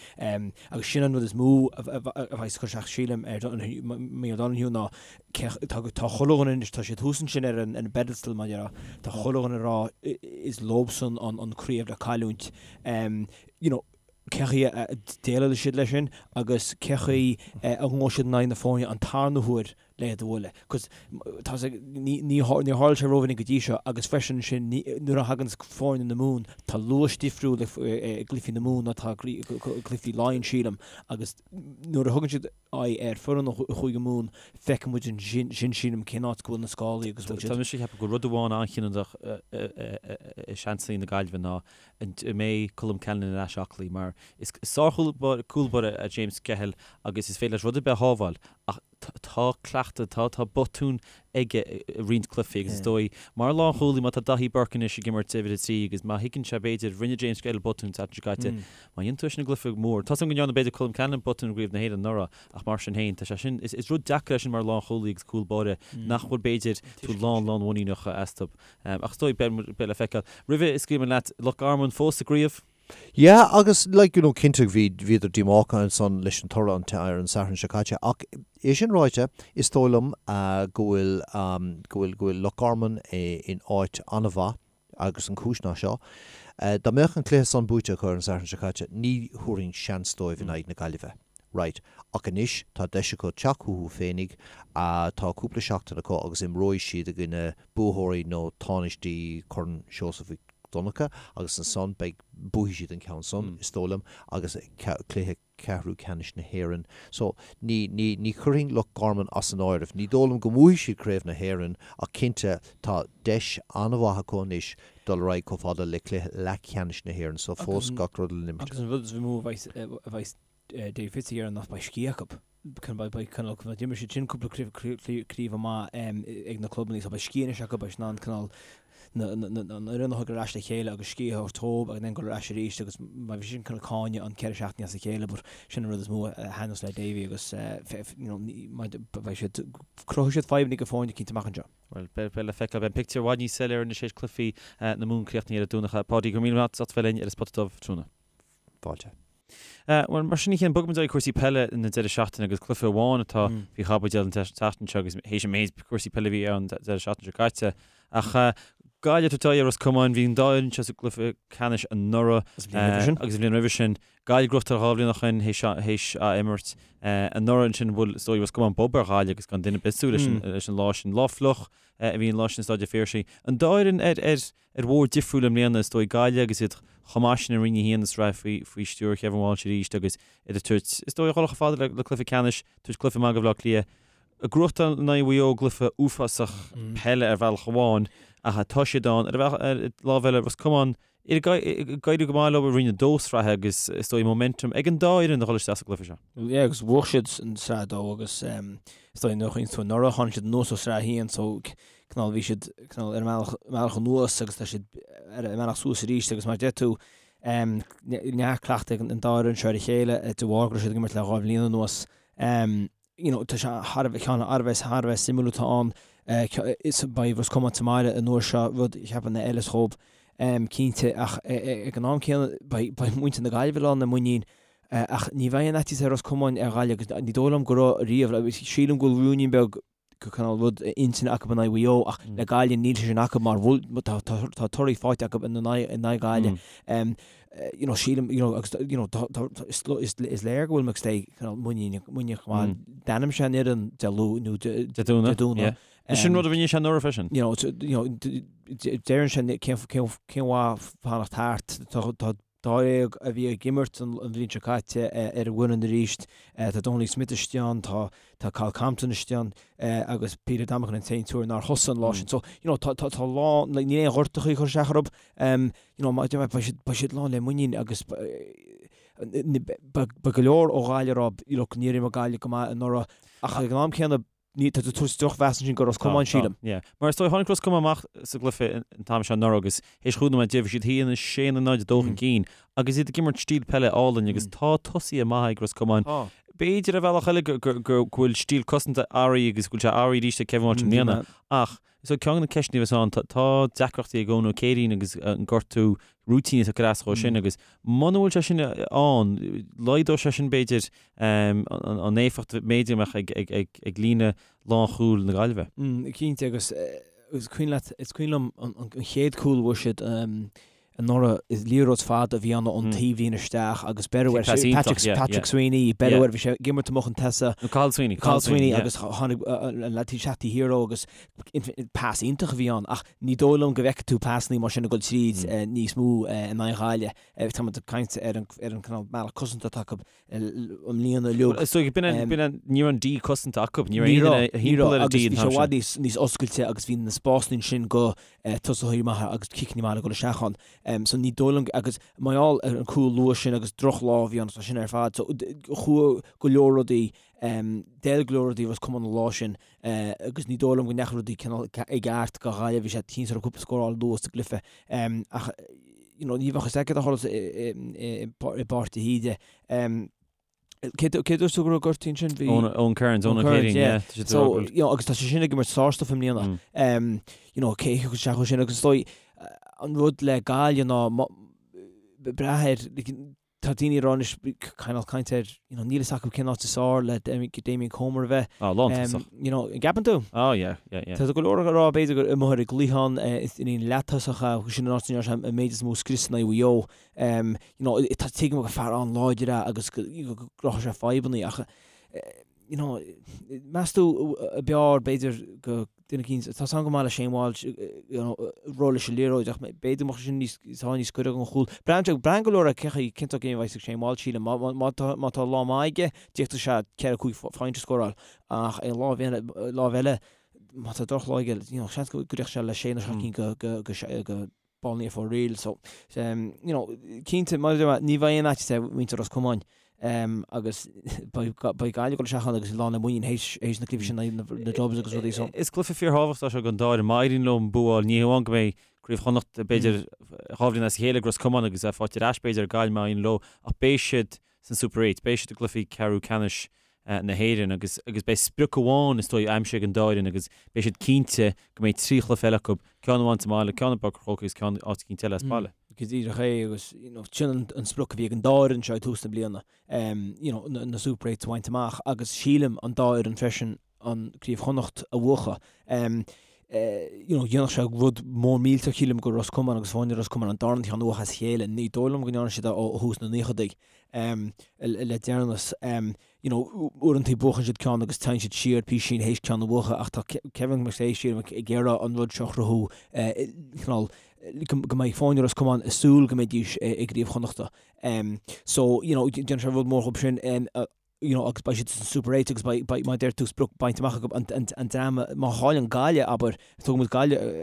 Agus sin an rud is mó a bheas ag cur isteach, sílim, ar Micheál Donoghue ná tá chuile dhuine anois, tá siad thuas ansin ar an bpedestal, mar a déarfá, tá chuile dhuine ag rá is leobsan an craobh le cailliúint. You know, cé chaoi a déileálfaidh siad leis sin agus cé chaoi a ngabhfaidh siad in aghaidh na foirne an tarna huair le iad a bhualadh. Cos tá sé, ní, ní, níor tharla sé rómhinic go dtí seo agus freisin ansin ní, nuair a thagann foirne na Mumhan, tá luas difriúil i gcluichí na Mumhan ná atá i gcluichí Laighean, sílim, agus nuair a thugann siad aghaidh ar foireann Chúige Mumhan, feicfidh muid ansin, sílim, cén áit go bhfuil na scálaí agus bhfuil siad. Tá mise ag ceapadh go rud amháin an-chinniúnach i seansanna na Gaillimhe ná An mbeidh Colm Callanan ar ais aclaí? Mar is sár-chúl báire é James Skehill agus is féidir leis rud ar bith a shábháil ach tá cleachtadh, tá tá botúin aige i roinnt cluichí agus is dóigh, mar lánchúlaí, má tá Daithí Burke anois ag imirt uimhir 3 agus má thuigeann sé b'fhéidir, rinne James Skehill botún an tseachtain seo caite, má dhéanann tú é sin i gcluiche mór, tá's agam go ndearna b'fhéidir Colm Callanan botún i gCraobh na hÉireann anuraidh ach mar sin féin, tá sé sin, is rud deacair é sin mar lánchúlaí agus cúl báire nach bhfuil b'fhéidir tú lán lánmhuiníneach astu. Ach is dóigh, beidh le feiceáil. Roimhe a scaoilfidh mé leat, Loch Garman fós sa gcraobh? Yeah, agus like, you know, cinnte bhí, bhíodar díomách ansan leis an toradh an, ar an Satharn seo caite ach é sin ráite, is dóigh liom go bhfuil, go bhfuil, go bhfuil Loch Garman in áit an-mhaith agus an chúis ná seo, dá mbeadh an cluiche san buaite acu ar an Satharn seo caite, ní thabharfainn seans dóibh in aghaidh na Gaillimhe. Right. Ach anois tá deis acu teacht chucu féinig, tá cúpla seachtain acu agus imreoidh siad i gcoinne buaitheoirí nó tánaistí Chorn Seosamh Mhic Donncha agus ansan beidh, buafaidh siad an ceann san, is dóigh liom, agus cluiche ceathrú ceannais na hÉireann. So, ní, ní, ní chuirfinn Loch Garman as an áireamh. Ní dóigh liom go mbuafaidh siad Craobh na hÉireann ach cinnte tá deis an-mhaith acu anois dul ar aghaidh chomh fada le cluiche leathcheannais na hÉireann. So, fós gach rud le n-imirt. Agus an rud is mó a bheidh, a bheidh Dave Fitz ag iarraidh ná beidh scíth acu. Cineál d'imir siad sin cúpla craobh amach ag na clubanna so beidh scíth anois acu, beidh siad in ann cineál an fhoireann a thug ar ais le chéile agus scíth a thabhairt dóibh agus then dul ar ais arís agus mar bhí sin cineál cáineadh an 4 seachtaine as a chéile but sin an rud is mó a thaitneos le Davy agus you know beidh siad, cruthóidh siad fadhbanna do fhoirne cinnte amach anseo. Bhuel, beidh le feiceáil. Beidh an pictiúr i bhfad níos soiléire anois théis cluichí na Mumhan críochnaithe ar an Domhnach. Páidí, go raibh míle maith agat as ucht bheith linn ar an Spota Dubh tráthnóna. Fáilte. Bhuel, mar sin a Chian, bogfaimid ag cúrsaí peile na deireadh seachtaine agus cluiche amháin atá faoi chaibidil an tseachtain seo agus théis an méid cúrsaí peile a bhí ann deireadh seachtaine seo caite. Ach Gaillimh ag tabhairt aghaidh ar Ros Comáin, bhí an dá fhoireann seo sa gcluiche ceannais anuraidh Agus an bhliain roimhe sin. agus an bhliain roimhe sin. Gaillimh gnóthachtáil dhá bhliain ó shin théis ath-imirt anuraidh ansin bhuail is dóigh Ros Comáin bob ar Ghaillimh agus gan duine ar bith ag súil leis an lá sin. Lá fliuch a bhí an lá sin i Staid an Phiarsaigh. An dá fhoireann ar ar bhóthar difriúil i mbliana is dóigh Gaillimh agus iad chomh maith sin i Roinn 1 na sraithe faoi faoi stiúir Kevin Walsh arís agus iad ag tabhairt is dóigh a dhul chomh fada le le cluiche ceannais, tabhairt cluiche maith do Bhaile Átha Cliath. Ag gnóthachtáil in aghaidh Mhaigh Eo gcluiche uafásach peile ar bhealach amháin ach tá siad ann ar bhealach ar lámh eile Ros Comáin ag éirí go maith leo i Roinn 2 sraithe agus is dóigh momentum ag an dá fhoireann a dhul isteach sa gcluiche seo. Yeah agus bhuaigh siad an sraith 2 agus is dóigh nuair a chuimhníonn tú anuraidh tháinig siad anuas ó sraith 1 so cineál bhí siad cineál ar a mbealach mbealach anuas agus tá siad ar a mbealach suas arís agus mar a deir tú neart cleachtaidh ag an dá fhoireann seo ar a chéile de bharr go raibh siad ag imirt le dhá bhliain anuas. You know tá sé thar a bheith ceann thar a bheith thar a bheith suimiúil atá ann is beidh Ros Comáin sa mbaile an uair seo rud a cheapann a fheilfeas dhóibh cinnte ach ag an am céanna beidh beidh muintir na Gaillimhe lán le muinín ach ní bheidh an fhaitíos ar Ros Comáin ar Ghaillimh agus ní dóigh liom go raibh riamh sílim go bhfuil rúinín beag cineál rud intinne acu in aghaidh Mhaigh Eo ach le Gaillimh níl sé sin acu mar bhfuil tá tá torthaí faighte acu in aghaidh in aghaidh Gaillimh. You know sílim you know agus you know tá tá is is is léir go bhfuil McStay cineál muiníneach muiníneach go maith. D'ainm sé an fhoireann Dé Luain nó Dé Dé Domhnaigh. Dé Domhnaigh. Yeah. Sin rud a rinne sé anuraidh freisin. You know you know deireann sé cén cén cén mhaith fanacht thart tá tá Dáréag a bhí ag imirt an bhliain seo caite ar an bhfoireann arís. Tá Donnelly Smith istigh ann, tá tá Kyle Compton istigh ann agus Peter Domican an t-aon triúr nár thosaigh an lá sin. So, you know, tá tá tá lán, like, níl aon ghortachaí ag cur isteach orthu. You know, beidh siad beidh siad lán le muinín agus beidh go leor ó Ghaillimh ag rá, you know, níor imir Gaillimh go maith anuraidh ach ag an am céanna Ní, tá tú tabhairt drochmheas ansin do Ros Comáin, sílim. Yeah. Mar is dóigh, tháinig Ros Comáin amach sa gcluiche an t-am seo anuraidh agus théis chúig nóiméad bhí siad a haon 6 nó 0 2 chun cinn agus iad ag imirt stíl peile álainn agus tá tosaithe maithe ag Ros Comáin. B'fhéidir ar bhealach eile go bhfuil stíl cosanta athraithe agus go bhfuil sé athraithe arís ag Kevin Walsh i mbliana ach is dóigh ceann de na ceisteanna a bheas ann, tá deacrachtaí ag Eoin Ó Céirín agus an gortú rúitín atá ag cur as dhó sin agus muna bhfuil sé sin ann, laghdóidh sé sin b'fhéidir an éifeacht b'fhéidir a mbeadh ag líne lánchúil na Gaillimhe. Cinnte agus is cuimhin leat, is cuimhin liom an chéad cúl a fuair siad anuraidh, is liathróid fada a bhí ann ón taobhlíne isteach agus beireadh air, Patrick Sweeney, beireadh air, bhí sé ag imirt amuigh chun tosaigh. Nó Cathal Sweeney. Cathal Sweeney agus tháinig an leaid isteach taobh thiar dhó agus pas iontach a bhí ann ach ní dóigh liom go bhfeicfidh tú pasannaí mar sin ag dul tríd níos mó in aghaidh Ghaillimh. Tá muid ag caint ar an cineál bealach cosanta atá acu i mbliana uilig. Is dóigh, b'in an, b'in an, ní raibh an D cosanta acu, ní raibh aon duine thimpeall ar an D an t-am sin. Bhí sé i bhfad níos, níos oscailte agus bhí na spásanna ansin do tosaithe maithe agus ciceanna maithe le dul isteach ann. So ní dóigh liom, agus mar gheall ar an cúl luath sin agus drochlá a bhí ann, tá sin ar fad. So chuaigh go leor rudaí, d'fheil go leor rudaí Ros Comáin an lá sin agus ní dóigh liom go ndeachaigh rudaí cineál i gceart do Ghaillimh, bhí sé cinnte cúpla scór a fháil luath sa gcluiche. Ach you know, ní bheadh fhios agat a tharla i bPáirc de hÍde. Cé dúirt tú go raibh gortaithe ansin? Bhí Eoin Kearns, Eoin Kearns, yeah. So, you know, agus tá sé sin ag imirt sárstuif i mbliana. You know, cé thiocfadh isteach ó sin agus is dóigh an rud le Gaillimh ná brath ar Tá daoine ag rá anois, cineál caint air, you know, níl fhios acu cén áit is fearr le Damien Comer a bheith. Ah, lántosach. You know, an gceapann tú? Ah, yeah, yeah, yeah. Tá go leor ag rá b'fhéidir gur amuigh ar an gcliathán in aon leath-tosach a, sin an áit a ndearna sé an méid is mó scrios in aghaidh Mhaigh Eo. You know, tá tuigim gur fear an-láidir é agus go gcruthódh sé fadhbanna ach, you know, meas tú ab fhearr b'fhéidir go duine eicínt, tá 's agam go maith le Shane Walsh, you know, ró leis an liathróid ach b'fhéidir go mbeadh sin níos, tá níos gaire don chúl. Braitheann, braitheann go leor ar cé chaoi, cén sórt game a bheas ag Shane Walsh, sílim. Má, má, má tá, má tá lá maith aige, d'fhéadfadh sé ceithre, cúig phointe a scóráil ach ar an lámh eile, lámh eile, má tá drochlá aige, you know, seans go dtiocfadh sé le sé nó seacht gcinn go, go, go, go ball ní for real. So, um, you know, cinnte, mar a deir mé, ní bheidh aon fhaitíos ar mhuintir Ros Comáin. Agus beidh Gaillimh ag dul isteach ann agus lán le muinín théis na cluichí sin in aghaidh na Dubs agus rudaí so. Is cluiche fíorthábhachtach é seo don dá fhoireann. Má éiríonn leo an bua a fháil, ní hamháin go mbeidh Craobh Chonnacht b'fhéidir 2 bhliain as a chéile ag Ros Comáin agus é faighte ar ais b'fhéidir ag Gaillimh má éiríonn leo ach beidh siad san Super 8, beidh siad i gcluichí ceathrú ceannais na hÉireann agus agus beidh sprioc amháin is dóigh aimsithe ag an dá fhoireann agus beidh siad cinnte go mbeidh 3 chluiche eile acu, ceann amháin sa mbaile, ceann i bPáirc an Chrócaigh agus ceann áit eicínt eile as baile. Go díreach é agus you know sin an an sprioc a bhí ag an dá fhoireann seo ag tús na bliana you know na na Super Eights a bhaint amach agus sílim an dá fhoireann freisin an Craobh Chonnacht a bhuachan. You know dhéanfadh sé rud mór millteach sílim do Ros Comáin agus foirne Ros Comáin an darna ceann a bhuachan as a chéile. Ní dóigh liom go ndearna siad é ó thús na naochadaí le deireanas. You know uaireanta buachann siad ceann agus téann siad siar písín théis ceann a bhuachan ach tá Kevin McStay sílim ag iarraidh an rud seo a chruthú cineál go mbeidh foirne Ros Comáin ag súil go mbeidís i gCraobh Chonnachta. So you know déanfaidh sé rud mór dhóibh sin. you know, agus beidh siad san Super 8 agus beidh, beidh, mar a deir tú, sprioc bainte amach acu, an, an, an dream, má chailleann Gaillimh, abair, tógfaidh muid Gaillimh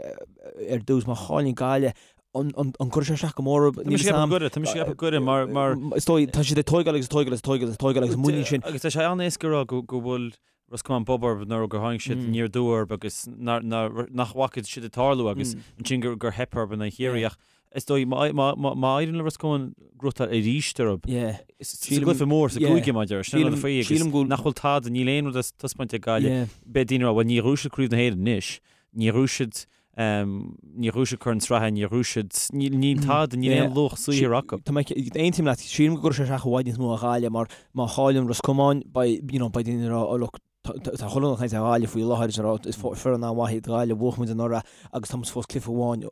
ar dtús, má chailleann Gaillimh, an, an, an gcuirfidh sé isteach go mór orthu? Tá mise ag ceapadh go gcuirfidh, tá mise ag ceapadh go gcuirfidh, mar, mar. Is dóigh, tá siad ag tóigeáil agus ag tóigeáil agus ag tóigeáil agus ag tóigeáil agus muinín sin. Agus tá sé an-éasca a rá go, go bhfuil Ros Comáin bob orthu nuair gur tháinig siad aniar aduaidh orthu agus nár, nár, nach bhfaca siad ag tarlú agus ansin gur, gur theip orthu in aghaidh Chiarraí ach Is dóigh, má éiríonn le Ros Comáin gnóthachtáil arís orthu, sa gcluiche mór, sa gcúige, mar a deir, sin an rud faoi, agus nach bhfuil tada, níl aon rud le taispeáint ag Gaillimh. Beidh daoine ag rá, bhuel, níor ghnóthaigh siad Craobh na hÉireann anois, níor ghnóthaigh siad, níor ghnóthaigh siad Corn Sraithe, níor ghnóthaigh siad, níl tada, níl aon luach saothair acu. Tá mé, aontaím leat, sílim go gcuirfidh sé isteach i bhfad níos mó ar Ghaillimh mar má chailleann Ros Comáin, beidh, you know, beidh daoine ag rá, oh look, Tá chuile dhuine ag caint ar Ghaillimh faoi láthair is ag rá is foireann an-mhaith iad Gaillimh, bhuaigh muid anuraidh agus tá muid fós cluiche amháin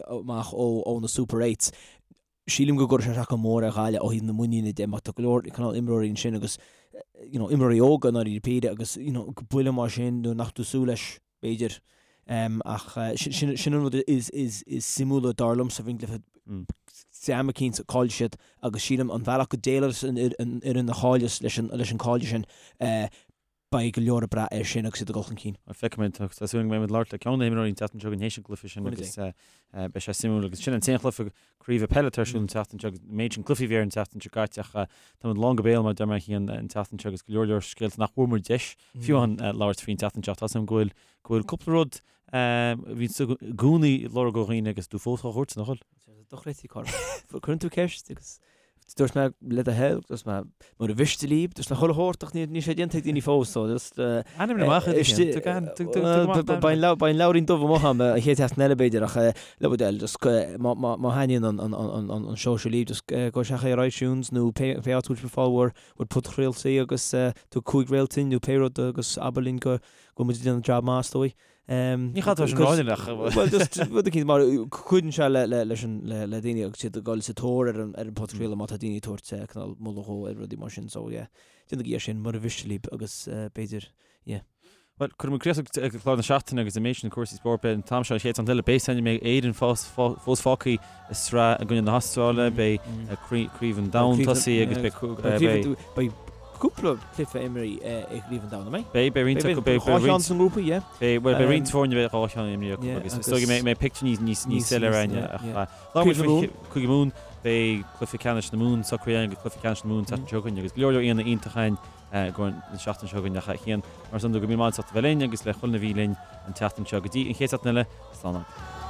amach ó na Super Eights. Sílim go gcuirfidh sé isteach go mór ar Ghaillimh ó thaobh na muiníne de mar tá go leor cineál imreoirí ansin agus you know imreoirí óga i ndáiríre píre agus you know buille mar sin nuair nach tú súil leis b'fhéidir. Ach sin sin an rud is is is suimiúla dar liomsa faoin gcluiche dream eicínt caillfidh siad agus sílim an bhealach go déileálas an fhoireann a chailleas leis an leis an cailleadh sin beidh go leor ag brath air sin agus iad ag dul chun cinn. Feicfimid, tá súil agam go mbeimid ag labhairt le ceann de na himreoirí an tseachtain seo chugainn théis an gcluiche sin agus beidh sé suimiúil agus sin an t-aon chluiche craoibhe peile atá ar siúl an tseachtain seo agus an méid sin cluichí a bhí ar an tseachtain seo caite ach táimid lán go béal mar a deir mé féin an tseachtain seo agus go leor leor scéalta nach bhfuair muid deis fiú amháin labhairt faoin tseachtain seo. Tá a fhios agam go bhfuil go bhfuil cúpla rud a bhíonn tú i gcónaí ag lorg ó dhaoine agus tú fós á thabhairt, nach bhfuil? Dochreidte, Cormac. Cuireann tú ceist agus dúirt mé le do thoil, dúirt mé mura mhiste libh, dúirt mé chuile shórt ach níl sé déanta ag daoine fós so just Ainmnigh amach iad sin. Beidh an leabhairín dubh amuigh agam an chéad seachtain eile b'fhéidir ach le bhur dtoil just má thaitníonn an seó seo libh just gabh isteach ar iTunes nó pé áit a bhfuil sibh ag fáil bhur bpodchraoltaí agus tabhair 5 réaltín nó pé rud agus abair linn go bhfuil muid ag déanamh jab maith is dóigh. Ní chaithfidh tú sin a rá ach. Bhuel just rud eicínt mar cuidíonn sé le le leis an le le daoine agus iad ag dul sa tóir ar an ar an podchraoladh má tá daoine ag tabhairt cineál moladh dhó ar rudaí mar sin so yeah déanaigí é sin mura mhiste libh agus b'fhéidir yeah. Bhuel, cuirfidh muid críoch ag clár na seachtaine agus an méid sin cúrsaí spóirt. Beidh an t-am seo an chéad seachtain eile. Beidh san mbeidh Éirinn fós fós fágtha i sraith i gcoinne na hAstráile, beidh Craobh an Domhain tosaithe agus beidh beidh cúpla cluiche imrithe i gCraobh an Domhain, an mbeidh? Beidh, beidh roinnt acu, beidh, beidh roinnt. Dhá cheann sa ngrúpa, yeah. Beidh, bhuel, beidh roinnt foirne beidh dhá cheann imrithe acu agus is dóigh go mbeidh pictiúr níos, níos, níos soiléire againne ach labhair muid faoi Cúige Mumhan, beidh cluiche ceannais na Mumhan socraithe againn agus cluiche ceannais na Mumhan an tseachtain seo chugainn agus go leor leor aíonna iontach againn i gcomhair na seachtaine seo chugainn ach a Chian, mar san go raibh míle maith agat as ucht a bheith linn agus le chuile dhuine a bhí linn an tseachtain seo. Go dtí an chéad seachtain eile, slán agaibh.